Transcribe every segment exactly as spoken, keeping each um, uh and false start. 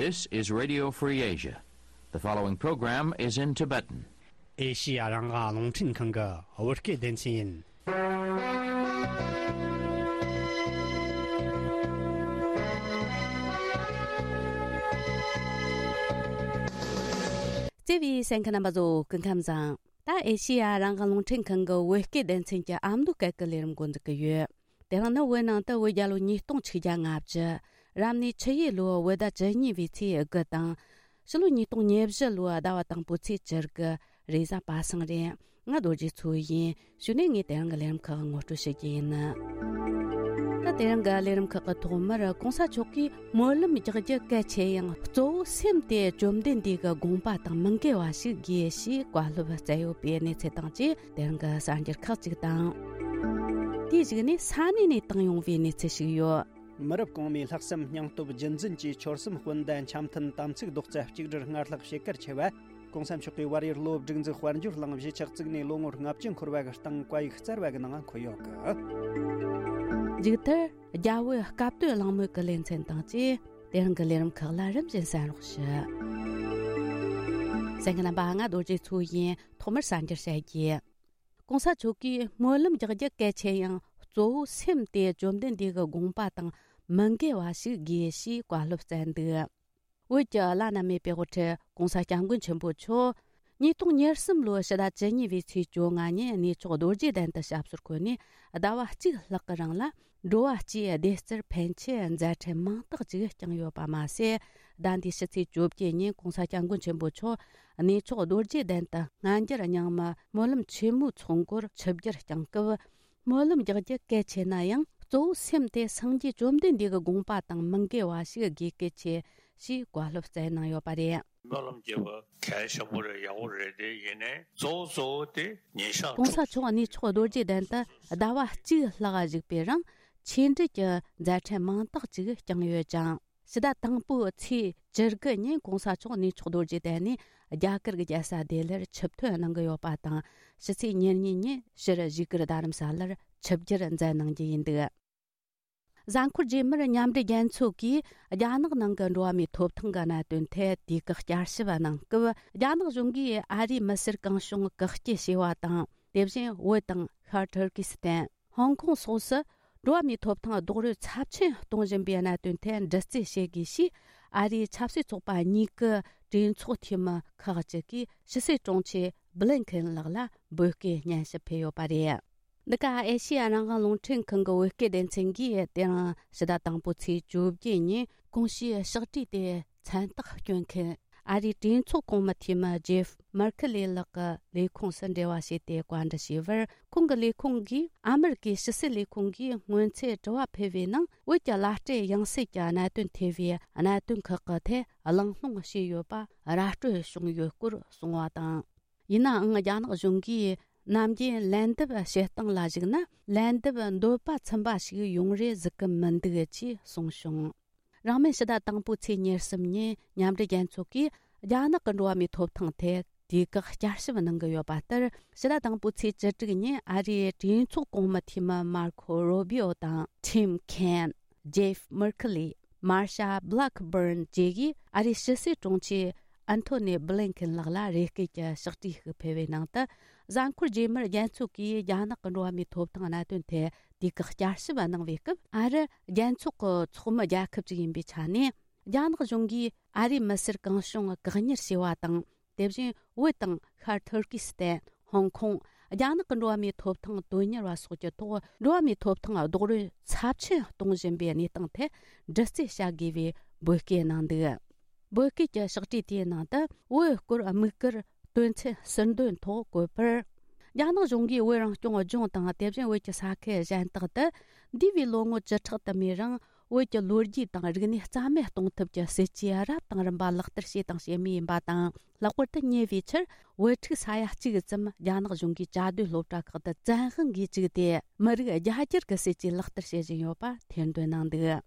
This is Radio Free Asia. The following program is in Tibetan. ཨེ་ཤི་ཡ་རང་དབང་རླུང་འཕྲིན་ཁང་གི་བོད་སྐད་སྡེ་ཚན་ཡིན། བརྩེ་བའི་གསན་མཁན་རྣམ་པ་ཚོ་སྐུ་ཁམས་བཟང་། ད་ཨེ་ཤི་ཡ་རང་དབང་རླུང་འཕྲིན་ཁང་གི་བོད་སྐད་སྡེ་ཚན་གྱི་ཨ་མདོ་སྐད་ཀྱི་ལས་རིམ་འགོ་འཛུགས་ཀྱི་ཡོད། དེ་རིང་ནི་བོད་ནང་དུ་བོད་རྒྱལ་ལོ་ཉིས་སྟོང་ཆིག་བརྒྱ་ལྔ་བཅུ། རབ་གནས་ཆུ་ཡོས་ལོའི་བོད་ཟླ་བཅུ་གཉིས་པའི་ཚེས་དགུ་དང་། ཕྱི་ལོ་ཉིས་སྟོང་ཉེར་བཞི་ལོའི་ཟླ་བ་དང་པོའི་ཚེས་བཅུ་དགུ། རེས་གཟའ་པ་སངས་རེད། ང་རྡོ་རྗེ་མཚོ་ཡིན། གཞུག་ནས་ངས་དེ་རིང་གི་ལས་རིམ་ཁག་ངོ་སྤྲོད་ཞུ་རྒྱུ་ཡིན། ད་དེ་རིང་གི་ལས་རིམ་ཁག་གི་ཐོག་མར་གོང་ས་མཆོག་གིས་སྨོན་ལམ་རྒྱག་རྒྱུ་གལ་ཆེ་ཡང་གཙོ་བོ་སེམས་དེ་བཅོམ་ལྡན་འདས་ཀྱི་དགོངས་པ་དང་མི་འགལ་བ་ཞིག་དགོས་ཞེས་བཀའ་སློབ་སྩལ་ཡོད་པའི་གནས་ཚུལ་དང་བཅས། དེ་རིང་གི་གསར་འགྱུར་ཁག་ཅིག་དང་། དེའི་གཞུག་ནས་ས་གནས་ནས་བཏང་ཡོང་བའི་གནས་ཚུལ་ཞིག་ཡོད། མི་རབས་གོང་མའི་ལྷག་བསམ་སྙིང་སྟོབས་རྒྱུན་འཛིན་གྱིས་ཆོལ་གསུམ་སྤུན་ཟླ་འཆམ་མཐུན་དམ་ཚིག་རྡོག་རྩ་གཅིག་སྒྲིལ་སྔར་ལྷག་བྱེད་གལ་ཆེ་བ། གོང་ས་མཆོག་གིས་བར་ཡུལ་སློབ་སྒྲིག་འཛུགས་དཔལ་འབྱོར་གླིང་གཞིས་ཆགས་བཙུགས་ནས་ལོ་ངོ་ལྔ་བཅུ་འཁོར་བ་གི་སྟེང་བཀའ་ཡིག་སྩལ་བ་གི་ནང་འཁོད་ཡོད་གི། མཇུག་མཐར་རྒྱ་བོད་སྐབས་དོན་གླེང་མོལ་གྱི་ལེ་ཚན་དང་བཅས། དེ་རིང་གི་ལས་རིམ་ཁག་ལ་རིམ་བཞིན་གསན་རོགས་ཞུ། གསན་མཁན་རྣམ་པ། ང་རྡོ་རྗེ་མཚོ་ཡིན། ཐོག་མར་གསར་འགྱུར་བཤད་རྒྱུ། གོང་ས་མཆོག་གིས་སྨོན་ལམ་རྒྱག་རྒྱུ་གལ་ཆེ་ཡང་གཙོ་བོ་སེམས་དེ་བཅོམ་ལྡན་འདས་ཀྱི་དགོངས་པ་དང་མི་འགལ་བ་ཞིག་དགོས་ཞེས་བཀའ་སློབ་སྩལ་འདུག། བོད་ཀྱི་བླ་ན་མེད་པའི་དབུ་ཁྲིད་གོང་ས་སྐྱབས་མགོན་ཆེན་པོ་མཆོག་ཉིས་སྟོང་ཉེར་གསུམ་ལོའི་ཕྱི་ཟླ་བཅུ་གཉིས་པའི་ཚེས་བཅོ་ལྔ་ཉིན་གནས་མཆོག་རྡོ་རྗེ་གདན་དུ་ཞབས་སོར་འཁོད་ནས་ཟླ་བ་གཅིག་ལྷག་གི་རིང་ལ། འགྲོ་བ་སྤྱིའི་བདེ་རྩར་ཕན་ཆེད་མཛད་འཕྲིན་མང་དག་ཅིག་བསྐྱངས་ཡོད་པ་མ་ཟད། ཟླ་འདིའི་ཕྱི་ཚེས་བཅོ་བརྒྱད་ཉིན་གོང་ས་སྐྱབས་མགོན་ཆེན་པོ་མཆོག་གནས་མཆོག་རྡོ་རྗེ་གདན་དུ་སྔ་འགྱུར་རྙིང་མ་སྨོན་ལམ་ཆེན་མོའི་ཚོགས་འཁོར་ཆིབས་བསྒྱུར་བསྐྱངས་སྐབས། སྨོན་ལམ་རྒྱག་རྒྱུ་གལ་ཆེ་ན་ཡང་གཙོ་བོ་སེམས་དེ་སངས་རྒྱས་བཅོམ་ལྡན་འདས་ཀྱི་དགོངས་པ་དང་མི་འགལ་བ་ཞིག་དགོས་གལ་ཆེ་ཞེས་བཀའ་སློབ་སྩལ་གནང་ཡོད་པ་རེད། སྨོན་ལམ་རྒྱག་པ་གལ་ཆེན་པོ་རེད། ཡག་པོ་རེད། དེ་ཡིན་ནའི་གཙོ་བོ་གཙོ་བོ་དེ་ཉིན་ཞག་གོང་ས་མཆོག་གནས་མཆོག་རྡོ་རྗེ་གདན་དུ་ཟླ་བ་གཅིག་ལྷག་བཞུགས་པའི་རིང་ཆོས་འབྲེལ་གྱི་མཛད་འཕྲིན་མང་དག་ཅིག་བསྐྱངས་ཡོད་ཅིང་། ཕྱི་ཟླ་དང་པོའི་ཚེས་བཅུ་དགུ་ཉིན་གོང་ས་མཆོག་གནས་མཆོག་རྡོ་རྗེ་གདན་ནས་རྒྱ་གར་གྱི་རྒྱལ་ས་ལྡི་ལིར་ཆིབས་ཐོན་གནང་གི་ཡོད་པ་དང་། ཕྱི་ཚེས་ཉེར་གཉིས་ཉིན་ཕྱིར་བཞུགས་སྒར་རྡ་རམ་ས་ལར་ཆིབས་བསྒྱུར་མཛད་གནང་རྒྱུ་ཡིན་འདུག། གཟའ་འཁོར་རྗེས་མར་མཉམ་འབྲེལ་རྒྱལ་ཚོགས་ཀྱིས་རྒྱ་ནག་ནང་གི་འགྲོ་བ་མིའི་ཐོབ་ཐང་གི་གནད་དོན་ཐད་དུས་བཀག་བསྐྱར་ཞིབ་གནང་སྐབས། རྒྱ་ནག་གཞུང་གིས་ཨ་རིའི་མི་སེར་གང་བྱུང་བཀག་སྐྱིལ་བྱས་པ་དང་། དེ་བཞིན་བོད་དང་ཤར་ཐུར་ཀི་སི་ཐན། ཧོང་ཀོང་སོགས་སུ་འགྲོ་བ་མིའི་ཐོབ་ཐང་རྡོག་རོལ་ཚབས་ཆེན་གཏོང་བཞིན་པའི་གནད་དོན་ཐད་འདྲི་རྩད་བྱེད་དགོས་ཞེས། ཨ་རིའི་ཆབ་སྲིད་ཚོགས་པ་གཉིས་ཀྱི་གྲོས་ཚོགས་འཐུས་མི་ཁག་ཅིག་གིས་ཕྱི་སྲིད་དྲུང་ཆེ་བྷི་ལིན་ཁེན་ལགས་ལ་འབོད་སྐུལ་སྙན་ཞུ་ཕུལ་ཡོད་པ་རེད། འདི་ག་ཨེ་ཤེ་ཡ་རང་དབང་རླུང་འཕྲིན་ཁང་གི་བོད་སྐད་སྡེ་ཚན་གྱིས་དེ་རིང་ཕྱི་ཟླ་དང་པོའི་ཚེས་བཅོ་བརྒྱད་ཉིན་གོང་ཞུས་ཕྱག་བྲིས་དེ་མཚན་རྟགས་སྐྱོན་མཁན། ཨ་རིའི་གྲོས་ཚོགས་གོང་མའི་འཐུས་མི་ཇེབ་མར་ཁི་ལེ་ལགས་ཀྱི་ལས་ཁུངས་སུ་འབྲེལ་བ་བྱས་ཏེ་བཀའ་འདྲི་ཞུས་པར། ཁོང་གི་ལས་ཁུངས་ཀྱིས་ཨ་མེ་རི་ཀའི་ཕྱི་སྲིད་ལས་ཁུངས་ཀྱིས་སྔོན་ཚེ་དྲི་བ་ཕུལ་བའི་ནང་། བོད་ཀྱི་བླ་སྤྲུལ་ཡང་སྲིད་ཀྱི་གནད་དོན་ཐེ་བའི་གནད་དོན་ཁག་གི་ཐད་གླེང་སློང་བྱས་ཡོད་པ་ར་སྤྲོད་བྱུང་ཡོད་སྐོར་གསུངས་པ་དང་། ཡིན་ནའང་རྒྱ་ནག་གཞུང་གིས་ནམ་རྒྱུན་ལན་འདེབས་བྱེད་སྟངས་ལ་གཞིགས་ན། ལན་འདེབས་འདོད་པ་ཚིམ་པ་ཞིག་ཡོང་རེ་གཟིགས་ཀྱི་མི་འདུག་ཅེས་གསུངས་བྱུང་། རང་མིན་ཕྱི་ཟླ་དང་པོའི་ཚེས་ཉེར་གསུམ་ཉིན་མཉམ་འབྲེལ་རྒྱལ་ཚོགས་ཀྱིས་རྒྱ་ནག་གི་འགྲོ་བ་མིའི་ཐོབ་ཐང་ཐད་དུས་བཀག་བསྐྱར་ཞིབ་གནང་གི་ཡོད་པ་ལྟར། ཕྱི་ཟླ་དང་པོའི་ཚེས་བཅུ་དྲུག་ཉིན་ཨ་རིའི་གྲོས་ཚོགས་གོང་མའི་འཐུས་མི་མར་ཁོ་རོ་བྷི་ཨོ་དང་ཁྲིམ་ཁེན། ཇེབ་མར་ཁི་ལི། མར་ཤ་བྷི་ལག་བྷརན་བཅས་ཀྱིས་ཨ་རིའི་ཕྱི་སྲིད་དྲུང་ཆེ་ཨན་ཐོ་ནི་བྷི་ལིན་ཁིན་ལགས་ལ་རེ་སྐུལ་གྱི་ཕྱག་བྲིས་ཤིག་ཕུལ་བའི་ནང་དུ། གཟའ་འཁོར་རྗེས་མར་རྒྱལ་ཚོགས་ཀྱིས་རྒྱ་ནག་གི་འགྲོ་བ་མིའི་ཐོབ་ཐང་གནད་དོན་ཐད་དུས་བཀག་བསྐྱར་ཞིབ་གནང་བའི་སྐབས། ཨ་རི་རྒྱལ་ཚོགས་ཀྱི་ཚོགས་མི་རྒྱལ་ཁབ་ཅིག་ཡིན་པའི་ཆ་ནས། རྒྱ་ནག་གཞུང་གིས་ཨ་རིའི་མི་སེར་གང་བྱུང་བཀག་ཉར་བྱས་པ་དང་། དེ་བཞིན་བོད་དང་ཤར་ཐུར་ཀི་སི་ཐན། ཧོང་ཀོང་། རྒྱ་ནག་གི་འགྲོ་བ་མིའི་ཐོབ་ཐང་དོན་གཉེར་བ་སོགས་ཀྱི་ཐོག་འགྲོ་བ་མིའི་ཐོབ་ཐང་རྡོག་རོལ་ཚབས་ཆེན་གཏོང་བཞིན་པའི་གནས་སྟངས་ཐད་འདྲི་རྩད་བྱ་དགོས་པའི་འབོད་སྐུལ་གནང་འདུག། འབོད་སྐུལ་གྱི་ཕྱག་བྲིས་དེའི་ནང་དུ། བོད་སྐོར་དམིགས་བཀར་དོན་ཚན་ཟུར་འདོན་ཐོག་བཀོད་པར། རྒྱ་ནག་གཞུང་གིས་བོད་རང་སྐྱོང་ལྗོངས་དང་། དེ་བཞིན་བོད་ཀྱི་ས་ཁུལ་གཞན་དག་ཏུ། འདས་པའི་ལོ་ངོ་བཅུ་ཕྲག་དུ་མའི་རིང་། བོད་ཀྱི་ལོ་རྒྱུས་དང་རིག་གནས་རྩ་མེད་གཏོང་ཐབས་ཀྱི་སྲིད་ཇུས་རབ་དང་རིམ་པ་ལག་བསྟར་བྱས་དང་བྱེད་མུས་ཡིན་པ་དང་། ལྷག་པར་དུ་ཉེ་བའི་ཆར། བོད་ཕྲུག་ས་ཡ་གཅིག་ཙམ་རྒྱ་ནག་གཞུང་གིས་གྱ་སྡོད་སློབ་གྲྭ་ཁག་ཏུ་བཙན་དབང་གིས་བཅུག་སྟེ། མི་རིགས་རྒྱ་སྒྱུར་གྱི་སྲིད་ཇུས་ལག་བསྟར་བྱེད་བཞིན་ཡོད་པ་ཐེར་འདོན་གནང་འདུག།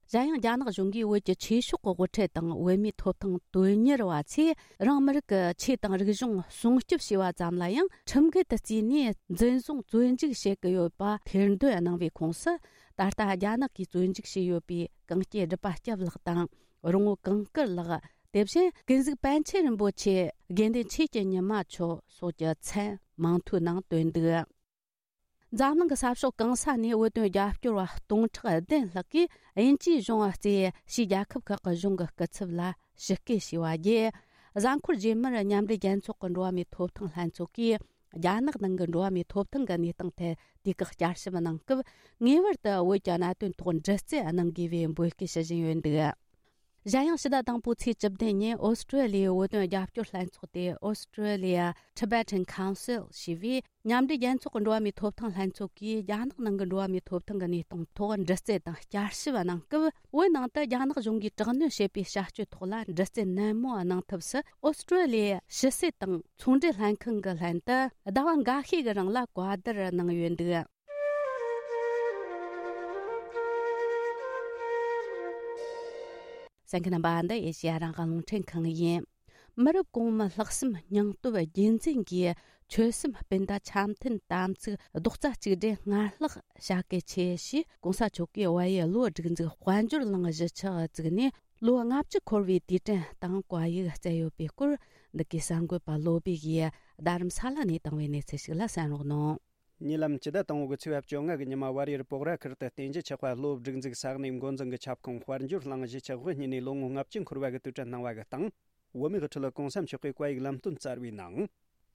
གཞན་ཡང་། རྒྱ་ནག་གཞུང་གིས་བོད་ཀྱི་ཆོས་ཕྱོགས་ཀྱི་དབུ་ཁྲིད་དང་བོད་མིའི་ཐོབ་ཐང་དོན་གཉེར་བ་ཚོས། རང་མི་རིགས་ཀྱི་ཆོས་དང་རིག་གཞུང་སྲུང་སྐྱོབ་བྱས་པ་ཙམ་ལ་ཡང་། ཁྲིམས་འགལ་དུ་བརྩིས་ནས་འཛིན་བཟུང་བཙོན་འཇུག་བྱེད་ཀྱི་ཡོད་པ་ཐེར་འདོན་གནང་བའི་ཁོངས་སུ། ད་ལྟ་རྒྱ་ནག་གིས་བཙོན་འཇུག་བྱས་ཡོད་པའི་གངས་སྐྱེས་སྒྲུབ་པ་སྐྱབས་ལགས་དང་། རོང་བོ་གངས་དཀར་ལགས། དེ་བཞིན་ཀུན་གཟིགས་པཎ་ཆེན་རིན་པོ་ཆེ། དགེ་འདུན་ཆོས་ཀྱི་ཉི་མ་མཆོག་སོགས་ཀྱི་མཚན་མིང་ཐོའི་ནང་བཏོན་འདུག་འཛམ་གླིང་གི་ས་ཕྱོགས་གང་ས་ནས་བོད་དོན་རྒྱབ་སྐྱོར་བ་སྟོང་ཕྲག་བདུན་ལྷག་གིས་དབྱིན་ཇིའི་གཞུང་རྩིས་ཕྱིའི་རྒྱལ་ཁབ་ཁག་གི་གཞུང་གི་སྐུ་ཚབ་ལ་ཞུ་སྐུལ་ཞུས་པ་བརྒྱུད། གཟའ་འཁོར་རྗེས་མར་མཉམ་འབྲེལ་རྒྱལ་ཚོགས་ཀྱི་འགྲོ་བ་མིའི་ཐོབ་ཐང་ལྷན་ཚོགས་ཀྱིས་རྒྱ་ནག་ནང་གི་འགྲོ་བ་མིའི་ཐོབ་ཐང་གི་གནས་སྟངས་ཐད་དུས་བཀག་བསྐྱར་ཞིབ་གནང་སྐབས། ངེས་པར་དུ་བོད་ཀྱི་གནད་དོན་ཐོག་འདྲི་རྩད་གནང་དགོས་པའི་འབོད་སྐུལ་ཞུ་བཞིན་ཡོད་འདུག་གཞན་ཡང་ཕྱི་ཟླ་དང་པོའི་ཚེས་བཅུ་བདུན་ཉིན་ཨོ་སི་ཀྲོ་ལི་ཡའི་བོད་དོན་རྒྱབ་སྐྱོར་ལྷན་ཚོགས་ཏེ། Australia Tibetan Council ཞེས་པའི་མཉམ་འབྲེལ་རྒྱལ་ཚོགས་ཀྱི་འགྲོ་བ་མིའི་ཐོབ་ཐང་ལྷན་ཚོགས་ཀྱིས་རྒྱ་ནག་ནང་གི་འགྲོ་བ་མིའི་ཐོབ་ཐང་གི་གནས་སྟངས་ཐོག་འདྲི་རྩད་དང་བསྐྱར་ཞིབ་གནང་སྐབས། བོད་ནང་དུ་རྒྱ་ནག་གཞུང་གིས་དྲག་གནོན་བྱེད་པའི་བྱ་སྤྱོད་ཐོག་ལ་འདྲི་རྩད་ནན་མོ་གནང་ཐབས་སུ་ཨོ་སི་ཀྲོ་ལི་ཡའི་ཕྱི་སྲིད་དང་ཚོང་འབྲེལ་ལྷན་ཁང་གི་ལྷན་དུ་ཟླ་བ་འགའ་ཤས་ཀྱི་རིང་ལ་བཀའ་བསྡུར་གནང་ཡོད་འདུག་གསན་མཁན་རྣམ་པ། འདི་ཨེ་ཤེ་ཡ་རང་དབང་རླུང་འཕྲིན་ཁང་ཡིན། མི་རབས་གོང་མའི་ལྷག་བསམ་སྙིང་སྟོབས་རྒྱུན་འཛིན་གྱིས་ཆོལ་གསུམ་སྤུན་ཟླ་འཆམ་མཐུན་དམ་ཚིག་རྡོག་རྩ་གཅིག་སྒྲིལ་སྔར་ལྷག་བྱ་གལ་ཆེ་ཞེས་གོང་ས་མཆོག་གིས་བལ་ཡུལ་གློ་སྒྲིག་འཛུགས་དཔལ་འབྱོར་གླིང་གཞིས་ཆགས་བཙུགས་ནས་ལོ་ལྔ་བཅུ་འཁོར་བའི་དུས་དྲན་དང་བཀའ་ཡིག་སྩལ་ཡོད་པའི་སྐོར། འདི་གའི་གསར་འགོད་པ་བློ་བྷེ་ཡིས་རྡ་རམ་ས་ལ་ནས་བཏང་བའི་གནས་ཚུལ་ཞིག་ལ་གསན་རོགས་གནང་། ཉེ་ལམ་སྤྱི་ཟླ་དང་པོ་གི་ཚེས་པ་བཅོ་ལྔ་གི་ཉི་མ་བལ་ཡུལ་སྤོག་ར་ཁུལ་དུ་བསྟན་རྒྱས་ཆོས་དཔལ་གློ་སྒྲིག་འཛུགས་ས་གནས་འགོ་འཛིན་གྱི་ཁྱབ་ཁོངས་དཔལ་འབྱོར་གླིང་གཞིས་ཆགས་དབུ་བརྙེས་ནས་ལོ་ངོ་ལྔ་བཅུ་འཁོར་བ་གི་དུས་དྲན་གནང་བ་གི་སྟེང་། བོད་མིའི་དབུ་ཁྲིད་གོང་ས་མཆོག་གིས་བཀའ་ཡིག་ལམ་སྟོན་སྩལ་བའི་ནང་།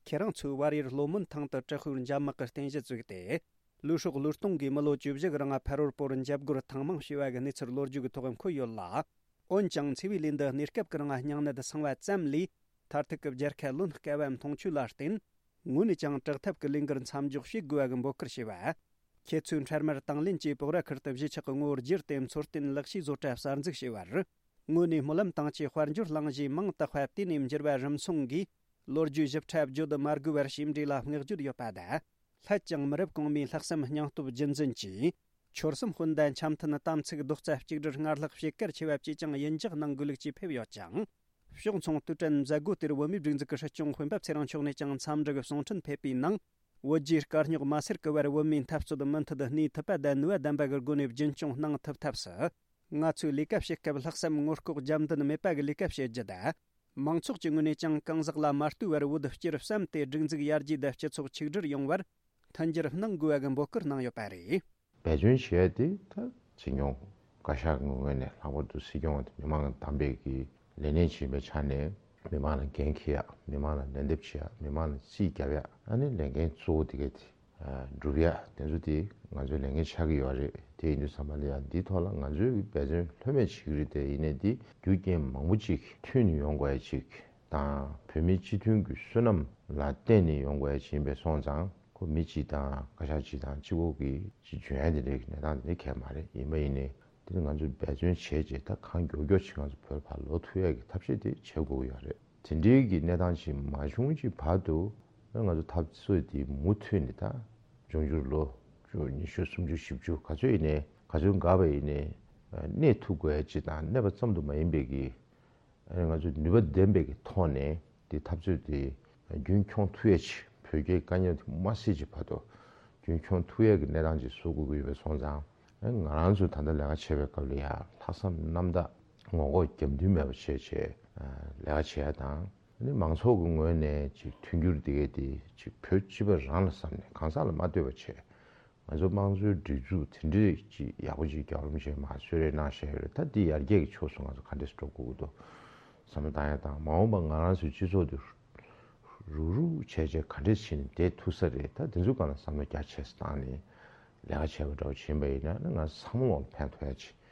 ཁྱེད་རང་ཚོས་བལ་ཡུལ་ལྷོ་མོན་ཐང་དུ་དྲག་ཤུལ་འཇབ་དམག་གི་རྟེན་གཞི་བཙུགས་ཏེ། ལུས་སྲོག་བློས་གཏོང་གིས་མི་ལོ་བཅུ་བཞི་གི་རིང་ཕ་རོལ་པོར་འཇབ་རྒོལ་ཐེངས་མང་བྱས་པ་གི་གནས་ཚུལ་ལོ་རྒྱུས་ཀྱི་ཐོག་འཁོད་ཡོད་ལ། འོན་ཀྱང་འཚེ་བའི་ལས་འདི་གནས་སྐབས་ཀྱི་རིང་སྙིང་ནད་སངས་པ་ཙམ་ལས། མཐར་ཐུག་གི་རྒྱལ་ཁ་ལོན་དཀའ་བ་མཐོང་ཆོས་ལ་བརྟེན། ངོས་ནས་ཀྱང་དྲག་ཐབས་ཀྱི་ལས་འགུལ་མཚམས་འཇོག་བྱེད་དགོས་པ་གི་འབོད་སྐུལ་བྱས་པ། ཁྱེད་ཚོས་འཕྲལ་མར་དང་ལེན་གྱིས་སྤོག་ར་ཁུལ་དུ་གཞིས་ཆགས་ཀྱི་ངོ་བོ་བསྒྱུར་ཏེ་འཚོ་རྟེན་ལེགས་བཅོས་བཟོ་གྲྭ་གསར་འཛུགས་བྱས་པར། ངོས་ནས་སྨོན་ལམ་བཏང་ཆེད་དཔལ་འབྱོར་གླིང་གཞིས་མིང་བཏགས་པ་དེ་ནས་འགྱུར་བ་རིམ་སོང་གིས། ལོ་རྒྱུས་ཞིབ་ཕྲ་བརྗོད་མ་དགོས་པར་ཞིབ་འབྲི་ལ་བསྔགས་བརྗོད་ཡོད་པ་དང་། སླད་ཀྱང་མི་རབས་གོང་མའི་ལྷག་བསམ་སྙིང་སྟོབས་རྒྱུན་འཛིན་གྱིས། ཆོལ་གསུམ་སྤུན་ཟླ་འཆམ་མཐུན་དམ་ཚིག་རྡོག་རྩ་གཅིག་སྒྲིལ་སྔར་ལྷག་བྱེད་གལ་ཆེ་བ་བཅས་ཀྱང་ཡིད་འཇགས་གནང་དགོས་ལུགས་ཀྱིས་ཕེབས་ཡོད་ཅིང་། ཕྱོགས་མཚུངས་དུས་དྲན་མཛད་སྒོ་དེར་བོད་མིའི་སྒྲིག་འཛུགས་ཀྱི་སྲིད་སྐྱོང་སྤེན་པ་ཚེ་རིང་མཆོག་ནས་ཀྱང་འཚམས་འདྲི་གི་གསུང་འཕྲིན་ཕེབས་པའི་ནང་། བོད་རྒྱའི་དཀའ་རྙོག་མ་སེལ་གི་བར་བོད་མིའི་འཐབ་རྩོད་མུ་མཐུད་གནས་ཐུབ་པ་དང་ནུས་པ་ལྡན་པ་གི་སྒོ་ནས་རྒྱུན་སྐྱོང་གནང་ཐུབ་ཐབས་སུ། ང་ཚོས་ལས་ཀ་བྱེད་སྐབས་ལྷག་བསམ་ངོ་ལྐོག་རྒྱབ་མདུན་མེད་པ་གི་ལས་ཀ་བྱེད་རྒྱུ་དང་། མང་ཚོགས་ཀྱི་ངོས་ནས་ཀྱང་གང་ཟག་ལ་མ་ལྟོས་པར་བོད་སྤྱིར་བསམ་སྟེ་སྒྲིག་འཛུགས་ཡར་རྒྱས་དང་སྤྱི་ཚོགས་ཆིག་སྒྲིལ་ཡོང་བར་མཐུན་འགྱུར་གནང་དགོས་པ་གི་འབོད་སྐུལ་གནང་ཡོད་པ་རེད། འབད་བརྩོན་བྱེད་ཡ་དེ་ད་བྱེད་མྱོང་། བཀའ་ཤག་གི་ངོས་ནས་ལྷག་པར་དུ་སྲིད་སྐྱོང་དེ་མི་མང་ལ་བདམས་པའི་གི་ལས་གནས་བྱེད་པའི་ཆ་ནས་མི་མང་ལ་འགན་འཁྱེར་ཡ། མི་མང་ལ་ལན་འདེབས་བྱེད་ཡ། མི་མང་ལ་རྩིས་རྒྱབ་ཡ། ཨ་ནི་ལས་འགན་གཙོ་བོ་དེ་ག་དེ་སྒྲུབ་ཡ་དེ་ཚོ་དེ་ང་ཚོའི་ལས་འགན་ཆགས་ཀྱི་ཡོད་རེད། དེ་ཡིན་དུས་ཙམ་པ་ལ་ཡ་འདིའི་ཐོག་ལ་ང་ཚོའི་འབད་བརྩོན་ལྷོད་མེད་བྱེད་ཀྱི་རེད། དེ་ཡིན་ནའི་འདི་རྒྱུ་རྐྱེན་མང་པོ་ཅིག་མཐུད་ནས་ཡོང་དགོས་ཡ་ཅིག་དང་། བོད་མིའི་སྤྱི་མཐུན་གྱི་བསོད་ནམས་ལ་བརྟེན་ནས་ཡོང་དགོས་ཡ་ཅིག་ཡིན་པས་སོང་ཙང་། ཁོ་མི་གཅིག་དང་བཀའ་ཤག་གཅིག་དང་གཅིག་པོ་གིས་ཅིག་འཇོན་ཡ་དེ་འདྲའི་གནས་སྟངས་དེ་འདྲ་གང་ཡང་མ་རེད། ཡིན་པ་ཡིན་ནའི་དེ་ནི་ང་ཚོས་འབད་བརྩོན་བྱས་རྗེས་ད་གང་མགྱོགས་མགྱོགས་ཅིག་ང་ཚོ་བོད་ལ་ཕར་ལོག་ཐུབ་ཡ་གི་ཐབས་ཤེས་དེ་བྱེད་དགོས་ཀྱི་ཡོད་རེད། དེ་འདྲའི་གི་གནས་སྟངས་ཅིག་མ་བྱུང་ཅིག་བར་དུ་ང་ཚོ་འཐབ་རྩོད་དེ་མུ་མཐུད་ནས། ད་འབྱུང་འགྱུར་ལོ་བཅུ་ཉི་ཤུ་སུམ་ཅུ་བཞི་བཅུ་ག་ཚོད་ཡིན་ནའི་ག་ཚོད་འགོར་བ་ཡིན་ནའི་གནས་ཐུབ་དགོས་ཡ་ཅིག་དང་། གནས་པ་ཙམ་དུ་མ་ཡིན་པའི་གི་ང་ཚོས་ནུས་པ་ལྡན་པའི་གི་ཐོག་ནས་དེ་འཐབ་རྩོད་དེ་རྒྱུན་འཁྱོངས་ཐུབ་ཡ་ཅིག་བོད་རྒྱའི་དཀའ་ངལ་དེ་མ་སེལ་ཅིག་བར་དུ་རྒྱུན་འཁྱོངས་ཐུབ་ཡ་གི་གནས་སྟངས་ཅིག་བཟོ་དགོས་ཀྱི་ཡོད་པས་སོང་ཙང་། ང་རང་ཚོས་ད་ལྟ་ལས་ཀ་བྱེད་པའི་སྐབས་ལ་ཡ་ལྷག་བསམ་རྣམ་དག་ངོ་ལྐོག་རྒྱབ་མདུན་མེད་པ་བྱས་བྱས་ལས་ཀ་བྱེད་ཡ་དང་། ཨ་ནི་མང་ཚོགས་ཀྱི་ངོས་ནས་ཅིག་མཐུན་འགྱུར་དེ་གས་དེ་ཅིག་བོད་སྤྱི་པ་རང་ལ་བསམ་ནས་གང་ཟག་ལ་མ་ལྟོས་པ་བྱས། ང་ཚོ་དམངས་གཙོའི་སྒྲིག་འཛུགས་དེ་འདྲས་ཅིག་ཡག་པོ་ཅིག་རྒྱལ་བ་རིན་པོ་ཆེས་མར་གསོལ་རས་གནང་བཞག་ཡོད་རེད། ད་འདི་ཡར་རྒྱས་ཀྱི་ཕྱོགས་སུ་ང་ཚོ་ག་འདྲས་སེ་འགྲོ་དགོས་ཀྱི་འདུག་བསམ་བློ་བཏང་ཡ་དང་། མ་འོངས་པ་ང་རང་ཚོའི་སྤྱི་ཚོགས་འདི་རུག་རུག་བྱས་བྱས་ག་འདྲས་བྱས་ནས་བསྡད་ཐུབ་ས་རེད། ད་འདི་ཚོའི་སྒང་ལ་བསམ་བློ་རྒྱ་ཆེ་ཙམ་བཏང་ནས་ལས་ཀ་བྱས་པ་འདྲ་བོ་ཕྱིན་པ་ཡིན་ན་ནི་ང་ཚང་མ་ལ་ཕན་ཐོགས་ཡ་ཆེ།